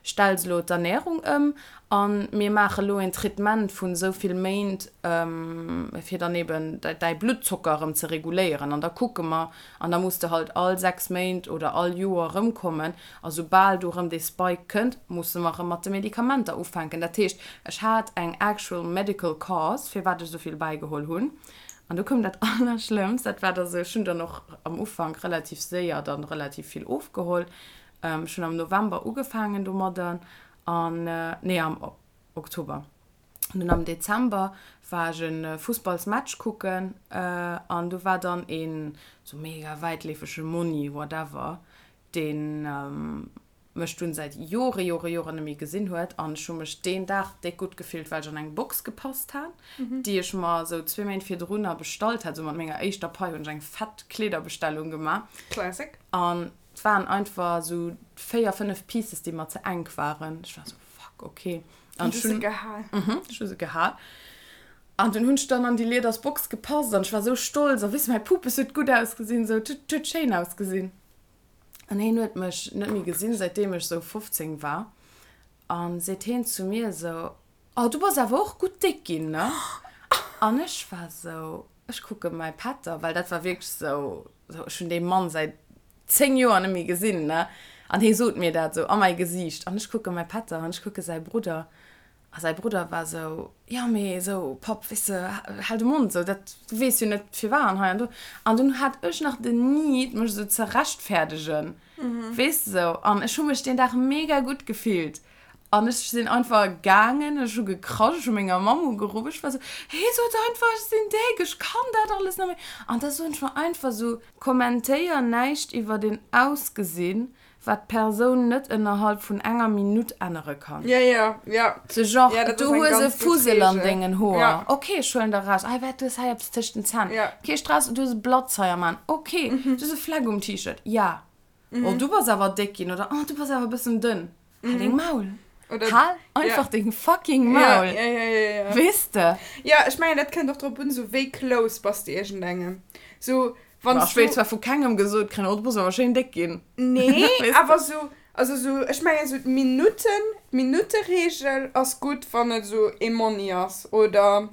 stells elo d'Ernährung ëm a mir maache lo een Traitement vun esou vill Méint, fir dann eben däi Bluttzocker erëm ze reguléieren an da kucke mer an da muss de halt all 6 Méint oder all Joer erëmkommen A soubal do erëm dee Spike kënnt, musse mer erëm mat de Medikamenter ufänken. Dat heescht, ech hat eng actual medical cause, firwat ech esou vill bäigeholl hunn. An du koum dat Allerschlëmmst, dat war da sou, ech hunn dann och am Ufank relativ séier dann relativ vill ofgeholl. Ech hunn am November ugefaangen domadder an, nee, am Oktober. An dunn am Dezember war ech e Fussballsmatch kucken an do war dann een sou mega wäitleefege Monni, whatever, deen mech dunn säit Jore, Jore, Joren net méi gesinn huet an ech hu mech deen Dag déck gutt gefillt, well ech an eng Box gepasst hat, déi ech mer esou zwee Méint virdrunner bestallt hat. Esou mat menger éischter Pai hunn ech eng fett Kleederbestellung gemaach. Classic. An et waren einfach esou véier, fënnef Pieces, déi mer ze enk waren. Ech war esou, fuck, ok. An du hues se gehal. Mhm, ech hu se gehal. An dunn hunn ech dann an déi lieders Box gepasst an ech war esou stolz a weess de, mäi Pupes huet gutt ausgesinn, esou, et huet schéin ausgesinn. An heen huet mech net méi gesinn, säitdeem ech sou 15 war. An seet heen zu mir sou, Oh, du bass awer och gutt déck ginn, ne? An ech war sou, ech kucke mäi Pätter, well dat war wierklech sou, sou, ech hunn dee Mann säit 10 Joer net méi gesinn, ne? An hee sot mir dat sou a mäi Gesiicht. An ech kucke mäi Pätter an ech kucke säi Brudder. A säi Brudder war esou, Jo, mee esou, Papp, weess de, hal de Mond, esou, dat, du weess jo net firwat an hei an do. An dunn hat ech nach den Need, mech esou ze rechtfäerdegen, weess de, esou. An ech hu mech deen Dag mega gutt gefillt. An ech sinn einfach gaangen, ech hu gekrasch, ech hu menger Mamm ugeruff, ech war esou, Hee, sot einfach, ech sinn déck, ech kann dat alles net méi. An da soen ech mer einfach esou, Kommentéier näischt iwwer een Ausgesinn, wat d'Persoun net ënnerhalb vun enger Minutt ännere kann. Ja, ja, ja. Sou genre, ja, du hues e Fussel an dengen Hoer. Ja. Ok, ech huelen der raus. Ei, wat, du hues hei eppes tëscht den Zänn. Ja. Kee Stress, du hues e Blatz hei am An. Ok, mhm. du hues e Fleck um T-Shirt. Ja. Mhm. Oh, du bass awer déck ginn, oder oh, du bass awer e bëssen dënn. Hal deng Maul. Oder, Hal einfach ja. deng fucking Maul. Ja, ja, ja, ja, ja. Weess de? Ja, ech mengen, dat kënnt och drop un, sou wéi close bass de iergendengem. Sou, Wann Ech wéilt zwar vu kengem gesot kréien, oh du bass awer schéin déck ginn. Nee, awer sou, also sou, ech mengen sou d'Minutten, d'Minutteregel ass gutt, wann et sou ee Monni ass oder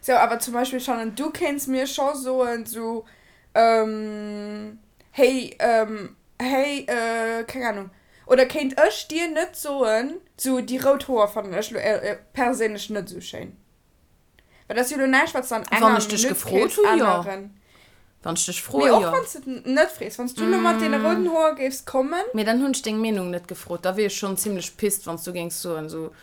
sou. Awer zum Beispill, Shannon, du kéints mir scho soen sou, hey, hey, keng Ahnung, oder kéint ech dir net soen, sou déi rout Hoer fannen ech lo perséinlech net sou schéin. Well dat ass jo lo näischt, wat s de an enger Wann ech dech Minutt gefrot kéints hu, jo. änneren. Wann ech dech froe, Mee och jo. wann s de et net frees, wann s du lo mat deene rouden Hoer géifs kommen. Mee dann hunn ech deng Meenung net gefrot. Da wier ech schonn zimmlech pissed, wann s du géings soen, sou,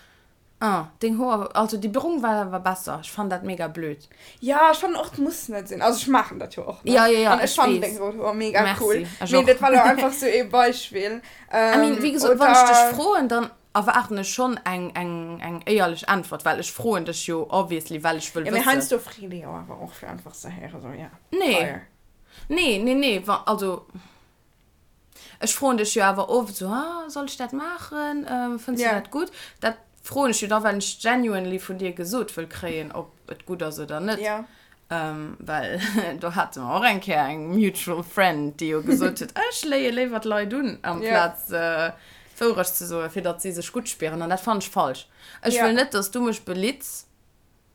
Ah, deng Hoer, also déi brong war awer besser. Ech fannen dat mega blöd. Ja, ech fannen och, et muss net sinn. Also ech maachen dat jo och, ne? Ja, ja, ja, An ech ech fannen weess. deng rout Hoer mega Merci, cool. ech Mee och. dat war lo einfach sou ee Beispill. I mean, wéi gesot, wann ech dech Oder. froen, dann Erwaarden ech schonn eng eng eng éierlech Äntwert, well ech froen dech jo obviously, well ech wëll Ja, mee wëssen. heiansdo freet ee jo awer och fir einfach ze héieren, sou, ja, Nee, fire. nee, nee, nee, wa, also ech froen dech jo awer oft sou, ah, soll ech dat maachen, fënns du Ja. dat gutt? Dat froen ech jo da, well ech genuinely vun dir gesot wëll kréien, ob et gutt ass oder net. Ja. Well do hate mer och eng Kéier eng mutual friend, déi jo gesot huet, ech léie léiwer d'Leit un, amplaz d'Wourecht ze soen, fir datt si sech gutt spieren. An dat fannen ech falsch. Ech wëll net, datt s du mech belitts,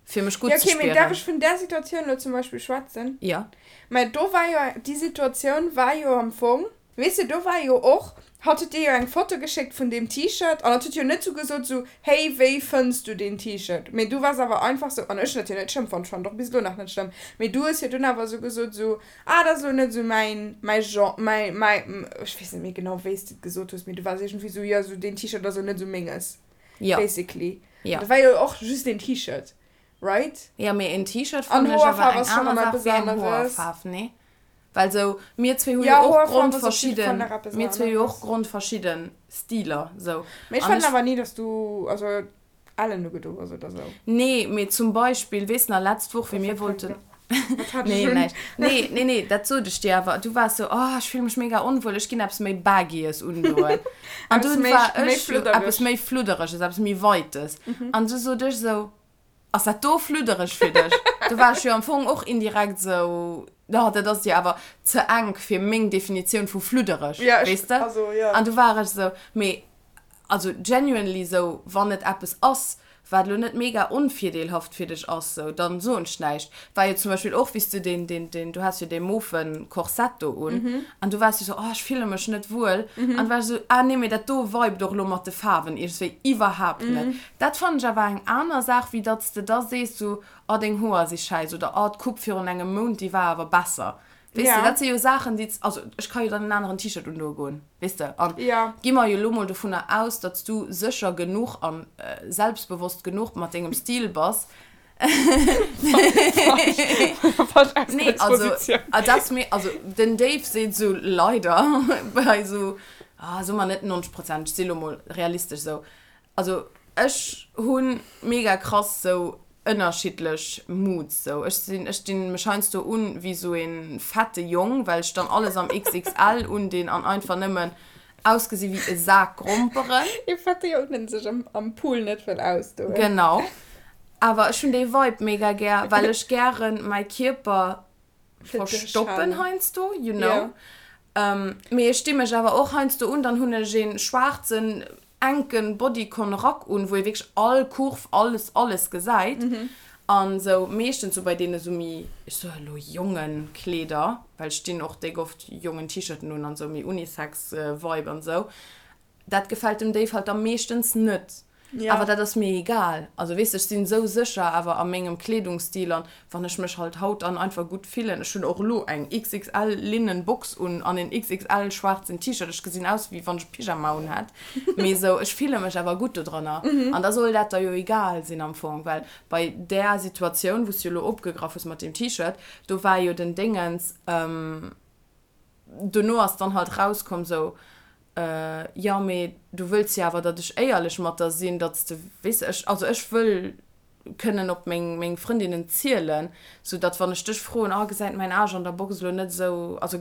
fir mech gutt ze spieren. Jo, okay, mee däerf ech vun där Situatioun elo zum Beispill schwätzen? Jo. Mä do war jo, déi Situatioun war jo am Fong, Weess de, do war jo och, hatt huet dir jo eng Foto geschéckt vun deem T-Shirt an hatt huet jo net sou gesot sou, hey, wéi fënns du deen T-Shirt? Mee du waars awer einfach sou, an ech hunn dat jo net schlëmm fonnt, ech fannen et och bis elo nach net schlëmm, mee du hues jo dunn awer sou gesot sou, ah, dat ass elo net sou mäin, mäi Genre, mäi, mäi, ech weess net méi genau, wéi s de et gesot hues, mee du waars iergendwéi sou, jo, sou deen T-Shirt ass elo net sou menges, Jo. basically. Jo. An dat war jo och just een T-Shirt, right? Jo, mee een T-Shirt An fannen ech awer Hoerfaarf eng ass schonn aner erëm Saach eppes wéi eng aneres. Hoerfaarf, nee? Well sou, mir zwee hu jo och grondverschidden, mir zwee hu jo och grondverschidden Stiler, sou. Mee ech fannen awer ni, dass du, also, ellen ugedo hues oder sou. Nee, mee zum Beispill, weess nach, letzt Woch, wéi mir wollten. Wat hat ech Nee, un? näischt. Nee, nee, nee, dat sot ech dir awer. Du waars sou, oh, ech fille mech mega onwuel, ech ginn eppes méi Baggyes undoen. An Eppes dunn méi, war méi ech jo, Fluddereges. eppes méi Fluddereges, eppes méi Weites. An du sot ech sou, Ass dat do fluddereg fir dech? Do war ech jo am Fong och indirekt sou, oh, dat ass dir awer ze enk fir meng Definitioun vu fluddereg, Ja, ech, weess de? also, ja. An du war ech sou, mee also genuinely sou, wann et eppes ass, wat elo net mega onvirdeelhaft fir dech ass, sou, dann soen ech näischt. War jo zum Beispill och, wéi s du deen, deen, deen, du has jo dee mofen Korsett do un an du waars jo sou, oh, ech fille mech net wuel. An du war ech sou, ah nee, mee dat do vibet och elo mat de Faarwen iergendswéi iwwerhaapt net. Dat fannen ech awer eng aner Saach, wéi datt s de da sees sou, oh deng Hoer si schäiss oder oh d'Coupe virun engem Mount déi war awer besser. Weess de, dat si jo Saachen déi, also ech ka jo dann en aneren T-Shirt undoe goen, weess de. An gi mer jo elo mol dovunner aus, datt s du sécher genuch a selbstbewosst genuch mat dengem Stil bass, Nee, also, dat ass mir, also den Dave seet sou leider bei sou, ah soe mer net 90 Prozent, ech si lo mol realistesch sou, Also ech hunn mega krass sou ënnerschiddlech Moods sou. Ech sinn, ech dinn mech heiansdo un wéi sou een fette Jong, well ech dann alles am XXL undinn an einfach nëmmen ausgesi wéi e Sak Gromperen. Ee fette Jong den sech am Pool net wëll ausdoen. Genau. Awer ech hunn dee Vibe mega gär, well ech gären mäi Kierper verstoppen heiansdo, you know. Mee ech di mech awer och heiansdo un, dann hunn ech een schwaarzen enken Bodycon Rack un, wou ee wierklech all Kurv, alles, alles gesäit. An sou meeschtens sou bei deene sou méi, ech soe elo jongen Kleeder, well ech dinn och déck oft jongen T-Shirten un an sou méi Unisex Vibe an sou. Dat gefält dem Dave halt da meeschtens net. Ja. Awer dat ass mir egal. Also weess de, ech sinn esou sécher awer a mengem Kleedungsstil an wann ech mech halt haut dann einfach gutt fillen, ech hunn och elo eng XXL linnen Box un an en XXL schwaarzen T-Shirt, ech gesinn aus wéi wann ech e Pyjama un hätt, mee esou ech fille mech awer gutt dodranner an da soll dat der jo egal sinn am Fong, well bei där Situatioun wou s du elo opgegraff hues mat deem T-Shirt, do war jo den Déngens, dono ass dann halt rauskomm sou, jo mee du wëlls jo awer datt ech éierlech mat der sinn, datt s de, weess de, ech, also ech wëll kënnen op meng meng Frëndinnen zielen, sou datt wann ech dech froen, oh gesäit mäin Aarsch an der Box elo net esou, also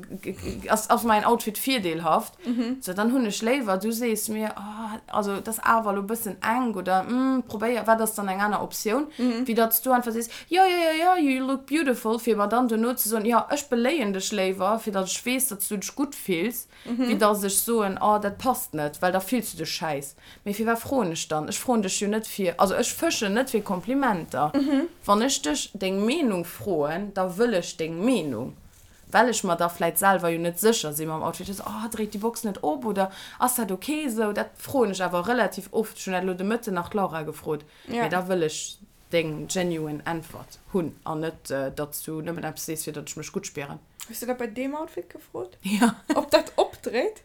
ass ass mäin Outfit virdeelhaft, sou dann hunn ech léiwer du sees mir, oh also et ass awer elo e bëssen enk oder hm probéier, wat ass dann eng aner Optioun, wéi datt s du einfach sees, jo jo jo jo you look beautiful, fir mer dann dono ze soen, jo ech beléien dech léiwer, fir datt ech weess, datt s du dech gutt fills. Wéi dass ech soen, oh dat passt net, well da fills du dech schäiss. Mee firwat froen ech dann? Ech froen dech jo net fir, also ech fëschen net fir Komplimenter. Wann ech dech deng Meenung froen, da wëll ech deng Meenung, well ech mer da vläit selwer jo net sécher si mam Outfit. Ech sou, oh dréit déi Box net op oder ass dat ok esou? Dat froen ech awer relativ oft. Ech hunn dat elo de Mëtten nach d'Laura gefrot. Mee da wëll ech deng genuine Äntwert hunn an net, datt s du nëmmen eppes sees, fir datt ech mech gutt spieren. Hues du dat bei deem Outfit gefrot? Ja. Ob dat opdréit?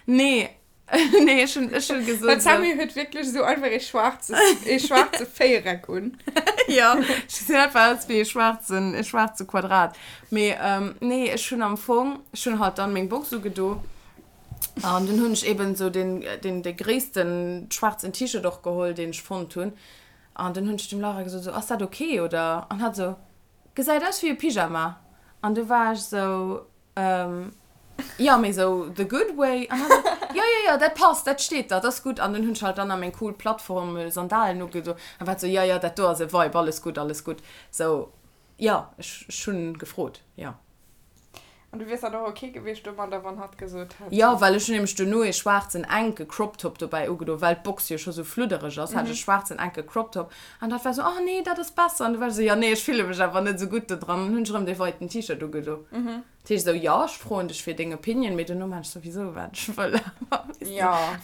Nee. Nee, ech hunn, ech hunn gesot. Well d'Sammy huet wierklech esou einfach ee schwaarze, ee schwaarze Véiereck un. Ja, ech gesinn einfach aus wéi ee schwaarzen, ee schwaarze Quadrat. Mee nee, ech hunn am Fong, ech hunn halt dann meng Box ugedo an dunn hunn ech eben esou den, den, de gréissten schwaarzen T-Shirt och geholl, deen ech fonnt hunn. An dunn hunn ech dem Laura gesot, esou, ass dat ok oder? An hatt esou, Gesäit aus wéi e Pyjama. An du war ech sou, ähm, jo, mee sou the good way. An hatt sou, jo, jo, jo, dat passt, dat steet der, dat ass gutt. An dunn hunn ech halt dann nach meng cool Plattform-Sandalen ugedo an war sou, jo, jo, dat do ass e Vibe, alles gutt, alles gutt. Sou, jo, ech, ech hunn gefrot, jo. An du wiers dann och ok gewiescht domadder, wann hatt gesot hätt. Jo, well ech hunn nämlech duerno ee schwaarzen enke Crop Top dobäi ugedo, well d'Box jo scho sou fluddereg ass, hat ech e schwaarzen enke Crop Top an dat war sou, oh nee, dat ass besser. An du war ech sou, jo nee, ech fille mech awer net sou gutt do dran. An hunn ech erëm dee weiten T-Shirt ugedo. Dat heescht sou, jo, ech froen dech fir deng Opinion, mee duerno maan ech souwisou wat ech wëll.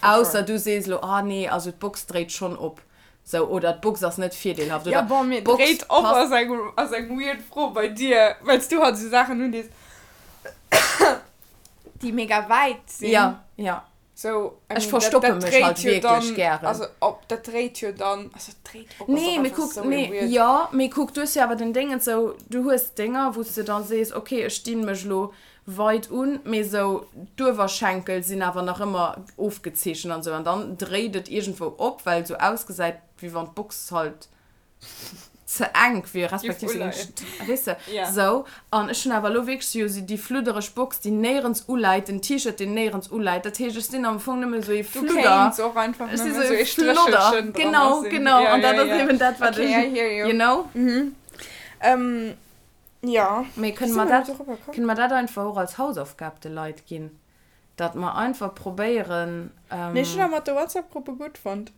Ausser du sees elo, oh nee, also d'Box dréit schonn op. Sou, oder d'Box ass net virdeelhaft, Ja, oder bon, mee d'Box dréit op passt. ass eng, ass eng weird Fro bei dir, well s du halt esou Saachen undees, déi mega wäit sinn. Ja, ja. Sou, I Ech mean, dat, verstoppe dat mech dréit halt jo wierklech dann, gären. also op, dat dréit jo dann, also et dréit op ass Nee, och mee einfach kuck, sou ee nee, weird. jo, mee kuck, du hues jo awer den Déngens sou, du hues Dénger, wou s de da sees, okay, ech dinn mech elo weit un, mee sou d'Uewerschenkel sinn awer nach ëmmer ofgezeechent an sou, an dann dréit et iergendwou op, well et sou ausgesäit, wéi wann d'Box halt ze enk wier, respektiv se géing, weess de, sou. An ech hunn awer elo wierklech jo déi fluddereg Box, déi néierens uläit, den T-Shirt, deen néierens uläit. Dat heescht, ech sinn am Fong nëmme sou ee Du Fludder. kéints och einfach Ech si nëmme sou sou ee ee Flodder. Stréchelchen dran Genau, sinn. genau. Ja, An ja, dat ass ja. eben dat, wat Okay, ech, I hear you. you know? Mhm. Ähm, ja. Mee Wéi kënne si mer mer elo dat, dorobber komm? kënne mer dat einfach och als Hausaufgab de Leit ginn? Datt mer einfach probéieren. Nee, ech hunn awer mat de WhatsApp-Gruppe gutt fonnt.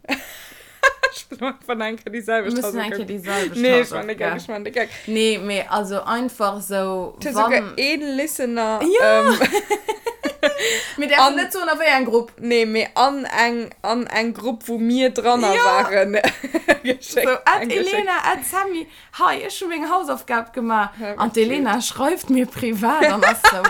Ech wëll einfach nach eng Kéier déi selwecht Mir mussen eng Kéier Hausaufgab. déi selwecht Nee, ech man de Gag, Hausaufgab. ech man de Gag. Nee, mee also einfach sou, Et huet souguer wann. een Listener. Jo! Ähm, Mir däerfen an, net soen, a wéi eng Grupp. nee, mee an eng, an eng Grupp, wou mir dranner Jo! waren, Sou, geschéckt, at eng geschéckt. Elena, at Sammy, Hei, ech hu meng Hausaufgab gemaach. Dat An war d'Elena cute. schreift mir privat an ass sou,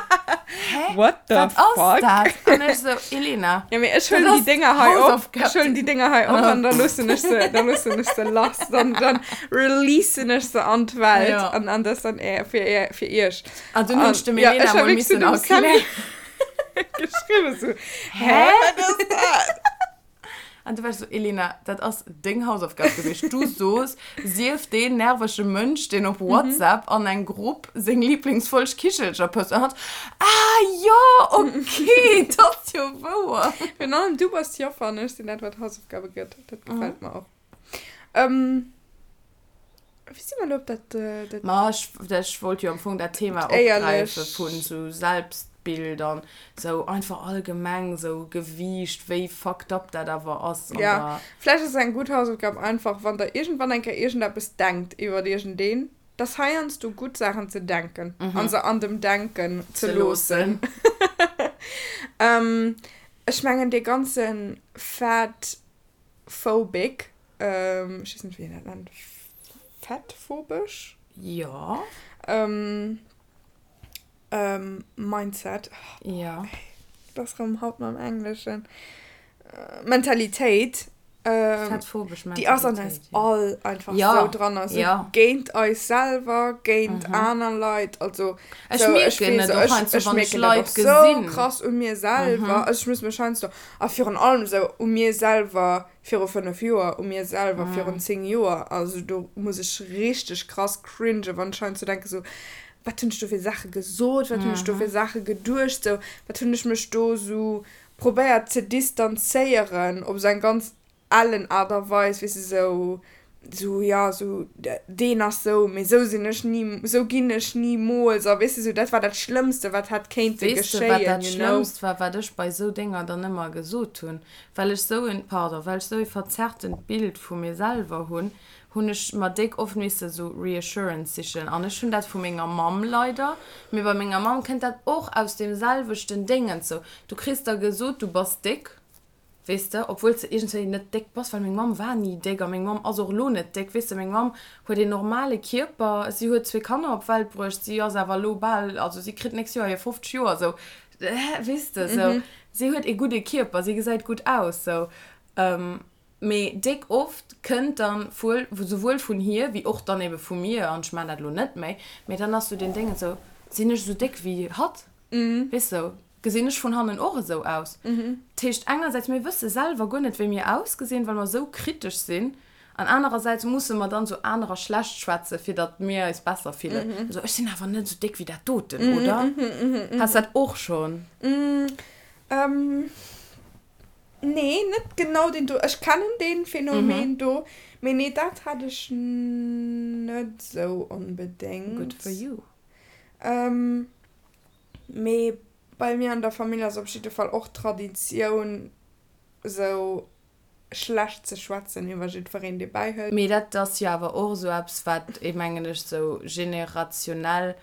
Hä? What the Wat ass fuck? dat? An ech sou, Elena, Ja, mee ech dat huelen déi ass Dénger hei op. Ech Hausaufgab. huelen déi Dénger hei op an da loossen ech se, da loossen ech se lass. Dann, dann releasen ech se an d'Welt. Ja. An, an das dann är, fir, är, fir iech. An dunn hunn An ech dem ja, Elena ech ha mol wierklech zu missen dem Sammy erklären. geschriwwen, sou, Hä? Hä? Wat ass dat? An du warst so, Elena, dat ass deng Hausaufgab gewiescht. Du soos, sief deen nervege Mënsch, deen op WhatsApp an eng Grupp seng Lieblingsfolg Kichelcher post. An hatt, Ah jo, okay, dat ass jo wouer. Virun allem du bass d'Joffer an ech sinn dat, wat Hausaufgabe gëtt. Dat gefält mer och. Ähm, wéi si mer elo op dat, dat. Ma ech, ech wollt jo am Fong dat Thema opgräife Éierlech. vun sou Selbstbild an sou einfach allgemeng sou Gewiicht, wéi fucked up dat awer ass an Ja, der. vläicht ass eng gutt Hausaufgab einfach, wann der iergendwann eng Kéier iergendeppes denkt iwwert iergendeen, dass heiansdo gutt Saachen ze denken an se an dem Denken ze Ze loossen. loossen. Ähm, ech mengen dee ganze Fat Phobic, ech weess net wéi een dat nennt, fettphobesch? Jo. Mindset, Jo. Dat ass rëm haut mam Engleschen, Mentalitéit, Fettphobesch déi ass an eis Mentalitéit, jo. all einfach sou dran, also géint eis selwer, géint aner Leit, also Ech sou, ech mierken weess, et och ech, heiansdo, ech wann ech mierken dat Leit och sou gesinn. krass u mir selwer, also ech muss mech heiansdo A virun allem esou u mir selwer viru 5 Joer, u mir selwer virun 10 Joer. Also do muss ech richteg krass cringen, wann ech heiansdo denke sou, wat hunn ech do fir Saache gesot, wat hunn ech do fir Saache geduecht, sou wat hunn ech mech do sou probéiert ze distanzéieren op esou eng ganz ellen Aart a Weis, weess de, sou, sou, jo, sou, deen ass sou, mee sou sinn ech ni, sou ginn ech nimools a weess de, sou, dat war dat Schlëmmste, wat hätt kéinte Weess de, wat geschéien, dat you know. Schlëmmst war, wat ech bei sou Dénger dann ëmmer gesot hunn? Well ech sou en, pardon, well ech sou e verzerrtent Bild vu mir selwer hunn, hunn ech mer déck oft misse sou Reassurance sichen. An ech hunn dat vu menger Mamm leider, mee bei menger Mamm kënnt dat och aus deem selwechten Déngens, sou, du kriss da gesot, du bass déck, Weess de, obwuel s de iergendwéi net déck bass, well meng Mamm war ni déck a meng Mamm ass och elo net déck, weess de, meng Mamm huet een normale Kierper, si huet zwee Kanner op d'Welt bruecht, si ass awer elo bal, also si kritt d'nächst Joer hir 50 Joer, sou, weess de, sou, si huet ee gudde Kierper, si gesäit gutt aus, sou. Mee déck oft kënnt dann wuel, souwuel vun hir wéi och dann ebe vu mir, an ech maan dat elo net méi, mee dann ass sou deen Déngen sou, sinn ech esou déck wéi hatt, weess sou, Gesinn ech vun hannen och esou aus? Dat heescht, engersäits, mir wësse selwer guer net, wéi mir ausgesinn, well mer esou kritesch sinn, an anerersäits musse mer dann esou anerer schlecht schwätzen, fir datt mir eis besser fillen. Esou, ech sinn awer net esou déck wéi dat doten, oder? Has dat och schonn? Nee, net genau deen do. Ech kennen dee Phänomen do, mee nee, dat hat ech net esou onbedéngt. Good for you. Mee bei mir an der Famill ass op jidde Fall och Traditioun esou schlecht ze schwätzen iwwer jiddwereen dee bäihëlt. Mee dat ass jo awer och esou eppes wat ee mengen ech esou generationell.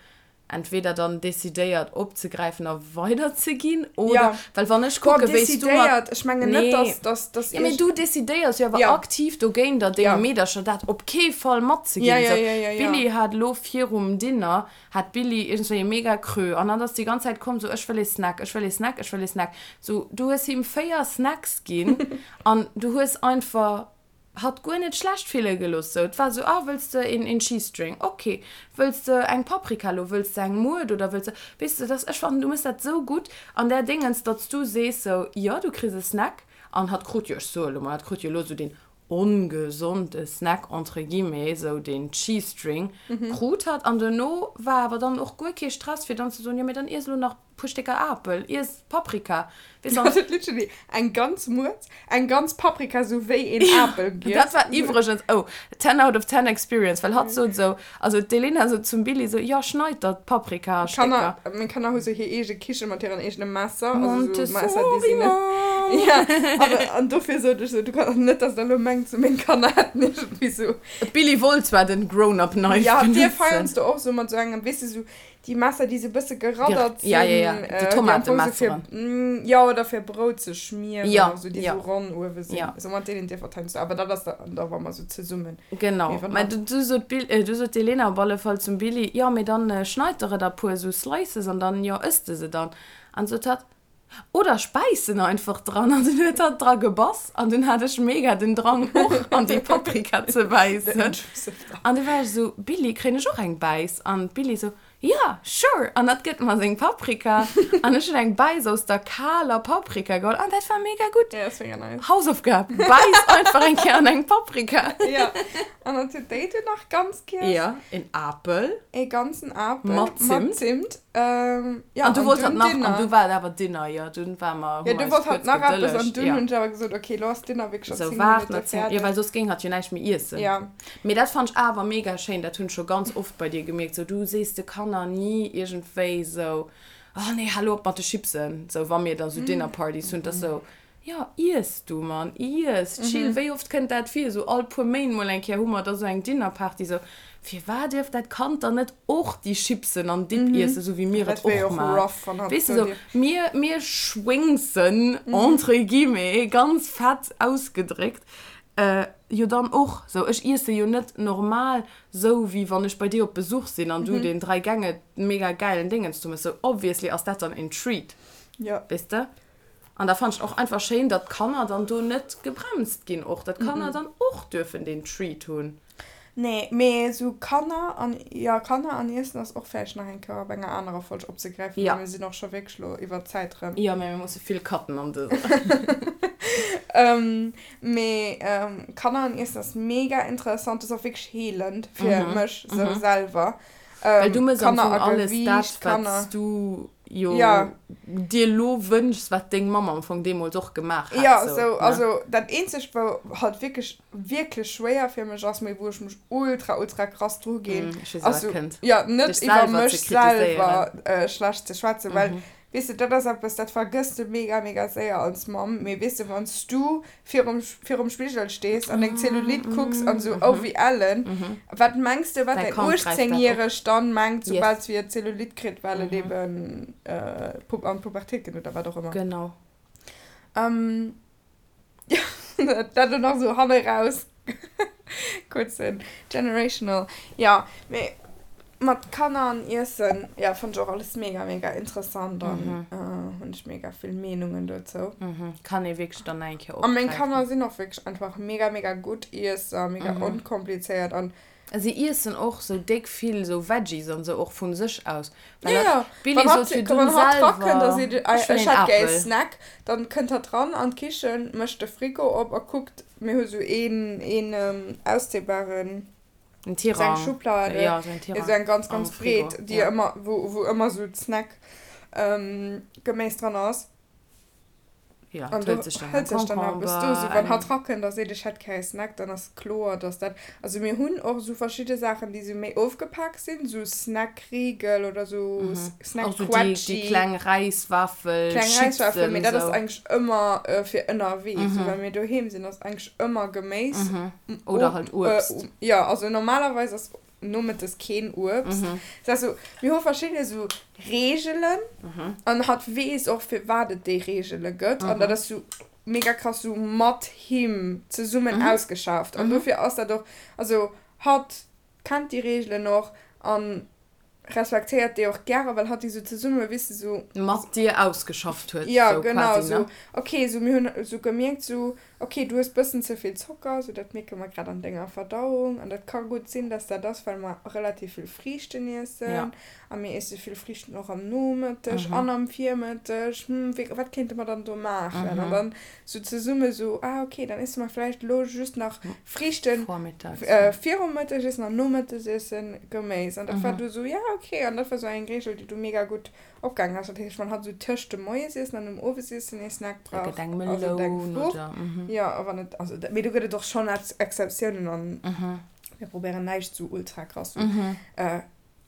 entweder dann decidéiert opzegräifen a weiderzeginn oder Ja. well wann ech Boah, kucke wéi s du mat decidéiert, ech mengen net, Nee. dass, dass, dass Ja, mee iergend. du decidéiers jo awer Ja. aktiv dogéint der denge Ja. Meedercher dat op kee Fall Ja, matzeginn. ja, Sou, ja, ja, ja. d'Billie hat elo virum Dinner hat d'Billie iergendswéi e mega Creux an hatt ass déi ganz Zäit komm sou, ech wëll ee Snack, ech wëll ee Snack, ech wëll ee Snack. Sou, du hues him 4 Snacks ginn an du hues einfach hatt guer net schlecht fille gelooss. Sou, et war sou, ah, wëlls de een, een Cheese String? Ok. Wëlls de eng Paprika lo? Wëlls de eng Muert oder wëlls de, weess de, dass, ech fannen, du méchs dat sou gutt an där Déngens, datt s du sees sou, jo, du kriss e Snack an hatt krut jo, ech soe lo mol, hatt krut jo lo sou deen ongesonde Snack entre guillemets, sou deen Cheese String krut hatt an duerno war awer dann och guer kee Stress fir dann ze soen, jo, mee dann iess elo nach puer Stécker Apel, iess Paprika, weess an. Huet literally eng ganz Muert, eng ganz Paprika sou wéi een Apel giess. Dat war iwwregens, oh, ten out of ten experience, well hatt sot esou, also d'Elena sot zum Billy esou, jo, schneid der d'Paprika a Stécker. Kanner, meng Kanner hu sou hir eege Kiche mat hiren eegene Messer, also sou Messer, déi si Montessori net, Mom! ja, awer, an dofir sot ech sou, du kann, net dass der elo mengt, sou meng Kanner hätten iergendwéi sou. D'Billy wollt zwar den Grown-up Knife Ja, benutzen. dir feiernst du och sou mat sou engem, weess de, sou Déi Messer, déi sou bësse geraddert sinn. Ja, ja, ja. Déi Tomatemesseren. Jo, oder fir Brout ze schmieren. Ja, oder sou, déi ja. sou ronn uewe sinn. Ja. Sou mat deenen dierf heiansdo. Awer dat ass dann da, wa mer sou zesummen. Genau. Mä du, du sot d'Bill, du sot d'Elena op alle Fall zum Billy, jo, mee dann schneid der et a puer sou Slices an dann, jo, ëss de se dann. An sot hatt, Oder ech bäissen einfach dran. An dunn huet hatt dra gebass an dunn hat ech mega den Drang och an déi Paprika ze bäissen. An du war ech esou, Billy, kréien ech och eng Bäiss? An d'Billy esou, Ja, sure! An hatt gëtt mer seng Paprika an ech hunn eng Bäiss aus der kaler Paprika geholl an dat war mega gutt. Ja, ass mega nice. Hausaufgab, bäiss einfach eng Kéier an eng Paprika. Ja, an dann huet déi dunn nach ganz giess. Ja, een Apel. Ee ganzen Apel. Mat Zimt. Mat Zimt. Ähm, ja, an du wollt dunn halt nach, Dinner. an du war et awer Dinner, jo, dunn war mer, Ja, hu du mer wollt eis halt kuerz nach eppes an gedëllegt, dunn ja. hunn ech awer gesot, okay, lo ass Dinner wierklech scho Sou, 10 waart Minutte nach 10, jo, fäerdeg. well soss géing hatt jo näischt méi iessen. Ja. Mee dat fannt ech awer mega schéin, dat hunn ech scho ganz oft bei dir gemierkt, sou, du sees de Kanner ni iergendwéi sou, oh nee, hal lo op mat de Chipsen, sou, wa mir da sou Dinnerpartys hunn, 't ass sou, Jo, iess du, Mann, iess, chill. Wéi oft kënnt dat vir? Esou all puer Méint mol eng Kéier hu mer da sou eng Dinnerparty. Sou, firwat dierf dat Kand dann net och déi Chipsen an Dip iessen, esou wéi mir et och maachen? Weess de, sou, mir, mir schwéngsen, entre guillemets, ganz fett ausgedréckt, jo dann och. Sou, ech iesse jo net normal sou, wéi wann ech bei dir op Besuch sinn an du deen Dräi-Gänge-mega gäilen Dingens do méchs. Sou, obviously ass dat dann en Treat, weess de? An da fannen ech och einfach schéin, datt d'Kanner dann do net gebremst ginn och, datt d'Kanner dann och duerfen deen Treat hunn. Nee, mee esou Kanner an, jo, Kanner an Iessen ass och vläicht nach eng Kéier op enger anerer Folg opzegräifen, well mir sinn och scho wierklech elo iwwer d'Zäit erëm. Jo, mee mir musse vill cutten an dëser. Mee Kanner an Iessen ass mega interessant, ass och wierklech heelend fir mech esou selwer. Well du mëss am Fong alles dat, wat s du jo dir elo wënschs, wat deng Mamm am Fong deemools och gemaach hätt. Jo, sou, also dat eenzegt, wou halt wierklech, wierklech schwéier fir mech ass, mee wou ech mech ultra, ultra krass dru ginn, ass sou, jo, net iwwer mech selwer schlecht ze schwätzen, well Weess de, dat ass eppes, dat vergëss de mega, mega séier als Mamm. Mee weess de, wann s du virum, virum Spigel stees an deng Zellulite kucks an esou, oh wéi ellen, wat mengs de, wat Däi däin Kand gräift dat op. 18-Järegt dann mengt, Yes. soubal si Zellulite kritt, well et eben an d'Pubertéit geet oder wat och ëmmer. Genau. Dat elo nach esou hanne raus kuerzen generational. Jo, mee mat Kanner an Iessen, jo, fannt ech och alles mega, mega interessant an hunn ech mega vill Meenungen dozou. Kann ee wierklech dann nach eng Kéier A meng opgräifen. Kanner sinn och wierklech einfach mega, mega gutt Iesser, mega onkomplizéiert an Si iessen och sou déck vill sou Veggies an sou och vun sech aus. Well ja, ja. D'Billie Wann sot hatt, virdrun wann hatt selwer, rakënnt a seet, ech wëll ech een hätt gär ee Apel. Snack, dann kënnt hatt ran an d'Kichen, mécht de Frigo op a kuckt, mir hu sou een, een auszéibaren, En sou eng Tirang. Schublade, Ja, sou en jo, Tirang sou eng ganz, am ganz Frigo, breet, déi ja. ëmmer, wou, wou ëmmer sou d'Snack, Geméis dran ass. Ja, An et do hëlt sech dann hëlt en sech dann eppes do. Sou Concombre, wann hatt eng. rakënnt a seet, ech hätt gär e Snack, dann ass kloer, dass dat. Also mir hunn och esou verschidde Saachen, déi sou méi ofgepak sinn, sou Snackriegel oder sou Och sou déi, déi Snackquetschi. kleng Räiswaffel, Kleng Räiswaffel, Chipsen, mee dat ass sou. eigentlech ëmmer fir ënnerwee. Sou wa mir doheem sinn, ass eigentlech ëmmer Geméis. Oder halt Uebst. Jo, also normalerweis ass. Nomëttes keen Uebst. Dat ass sou, mir hu verschidde sou Reegelen an hatt weess och firwat et déi Reegele gëtt an dat ass sou mega krass sou mat him zesummen ausgeschafft an dofir ass dat och, also hatt kennt déi Reegelen och an respektéiert déi och gäre, well hatt déi sou zesumme, weess de, sou. Mat dir ausgeschafft huet, sou quasi, ne? Jo, genau, sou, ok, sou mir hunn sou gemierkt, sou, ok, du hues bëssen ze vill Zocker, sou dat mierke mer grad an denger Verdauung an dat ka gutt sinn, dass dat ass, well mer relativ vill Friichten iessen a mir iesse vill Friichten och am Nomëtteg an am Virmëtteg, hm, wéi, wat kéinte mer dann do maachen? An dann sou zesumme sou, ah ok, dann iesse mer vläicht elo just nach Friichten virum Mëttegiessen an nom Mëttegiessen Geméis. An dat war du sou, ja ok. An dat war sou eng Reegel, déi du mega gutt opgaangen ass. Dat heescht, wann hatt sou tëscht dem Moiesiessen an dem Owesiessen ee Snack brauch, also eng Fruucht, jo, a wann et, also, mee do gëtt et och schonn Exceptiounen an mir probéieren näischt sou ultra krass sou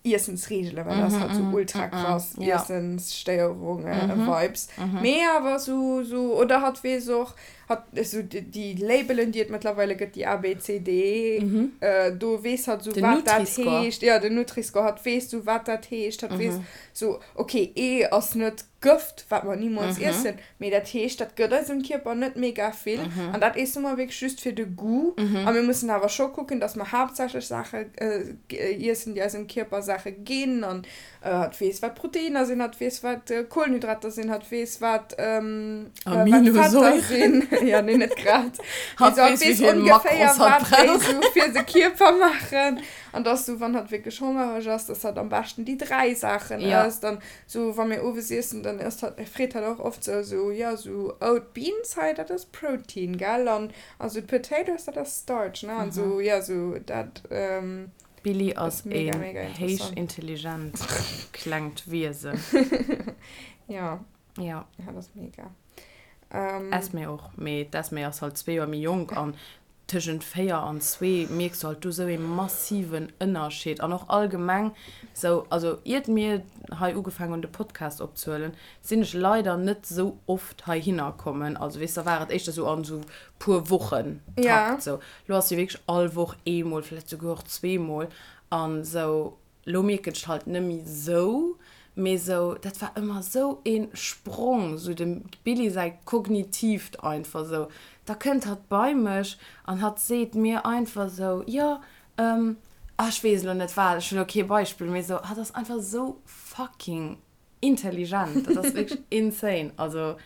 Iessensreegelen, well dat ass halt sou ultra krass Iessensstéierunge-Vibes. Mee awer sou, sou, oder hatt weess och, hatt, sou déi Labelen, déi et mëttlerweile gëtt, déi A, B, C, D, do weess hatt sou, wat dat heescht. Jo, den Nutri-Score, hatt weess sou, wat dat heescht. Hatt weess sou, ok, E ass net Gëft, wat mer nimools iessen, mee dat heescht, dat gëtt eisem Kierper net mega vill an dat iesse mer wierklech just fir de Goût. A mir mussen awer scho kucken, dass mer haaptsächlech Saache iessen, déi eisem Kierper Saache ginn an hatt weess, wat Proteiner sinn, hatt weess, wat Kohlenhydrater sinn, hatt weess, wat Fetter sinn. Jo, nee, net grad. Hatt weess ongeféier, wat déi sou fir de Kierper maachen an dass sou, wann hatt wierklech hongereg ass, dass hatt am beschten déi 3 Saachen ësst an Sou wa mir owes iessen, dann ësst hatt, freet hatt och oft sou, sou jo sou oh d'Beans hei dat ass Protein gell an a sou d'Potatoes dat ass Starch ne an sou jo sou dat D'Billie ass mega een mega héich interessant. intelligent klengt Wiesen. Jo. Jo. Hatt ass mega. Esmée och, mee d'Esmée ass halt zwee Joer méi jonk an tëschent 4 an zwee mierks du halt do sou ee massiven Ënnerscheed an och allgemeng sou, also iert mir hei ugefaangen hunn de Podcast opzehuelen, sinn ech leider net sou oft heihinner kommen, also weess da war et éischter sou an sou puer Wochen Takt sou, lo ass jo wierklech all Woch eemol, vläicht souguer och zweemol an sou. Lo mierken ech halt nemmi sou, mee sou dat war ëmmer sou een Sprong, sou dem Billy säi kognitiivt einfach sou, da kënnt hatt bei mech an hatt seet mir einfach sou, jo ah ech weess elo net wat, ech hunn elo kee Beispill, mee sou hatt ass einfach sou fucking intelligent, dat ass wierklech insane, also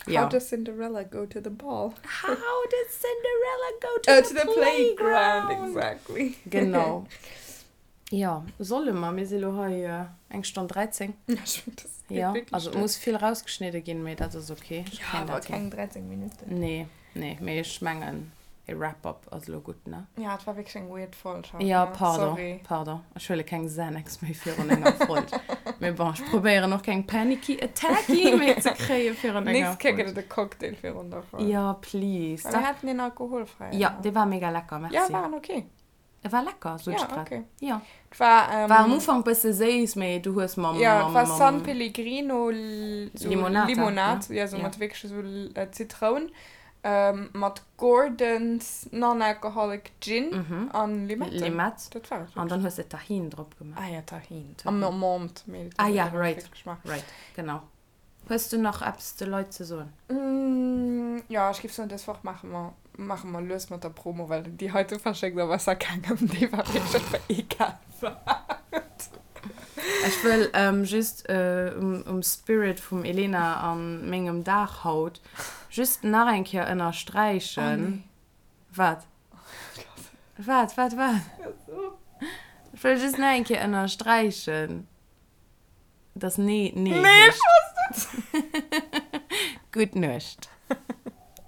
jo. How does Cinderella go to the ball? How did Cinderella go to the playground? Exactly. Genau. Jo, solle mer? Mir si lo hei eng Stonn 13. Jo, also et muss vill rausgeschnidde ginn, mee dat ass ok. Ech kréien dat hin. Jo, awer keng 13 Minutten. Nee, nee, mee ech mengen e Wrap-up ass elo gutt, ne? Ja, et war wierklech eng weird Folg haut, ne? Jo, pardon, Sorry. pardon. Ech huele keng Xanax méi virun enger Folg. Mee bon, ech probéieren och keng Panicky Attacky méi ze kréie virun enger Nächst Kéier gëtt et e Cocktail virun der Folg. Jo, please. Well mir haten een alkoholfräien. Jo, dee war mega lecker, merci. Jo, war en ok. E war lecker, sot ech grad. Ja, okay. Ja. Et war, ähm, War am Ufank bësse séiss, mee du hues mam, Ja, et mam, war San mam Pellegrino so Limonata, Limonad, ne? ja, so Ja. mat wierklech so Zitroun, ähm, mat Gordon's Non-Alcoholic Gin Mhm. an Limette. Limette. Dat war et An wierklech. dann hues de Tahin drop gemaach. Ah ja, Tahin. An Menthe, mee dat Ah huet ja, einfach right, wierklech geschmaacht. right, genau. Hues du nach eppes de Leit ze soen? Jo, ech géif soen, dës Woch maache mer, maache mer lues mat der Promo, well déi heite verschéckt a besser kengem. Déi war wierklech einfach egal wat. Ech wëll just um Spirit vum Elena a mengem Dag haut just nach eng Kéier ënnersträichen. Wat? Wat, wat, wat? Ech wëll just nach eng Kéier ënnersträichen. Dass Nee, Nee Nee, ech wosst et! Gutt Nuecht.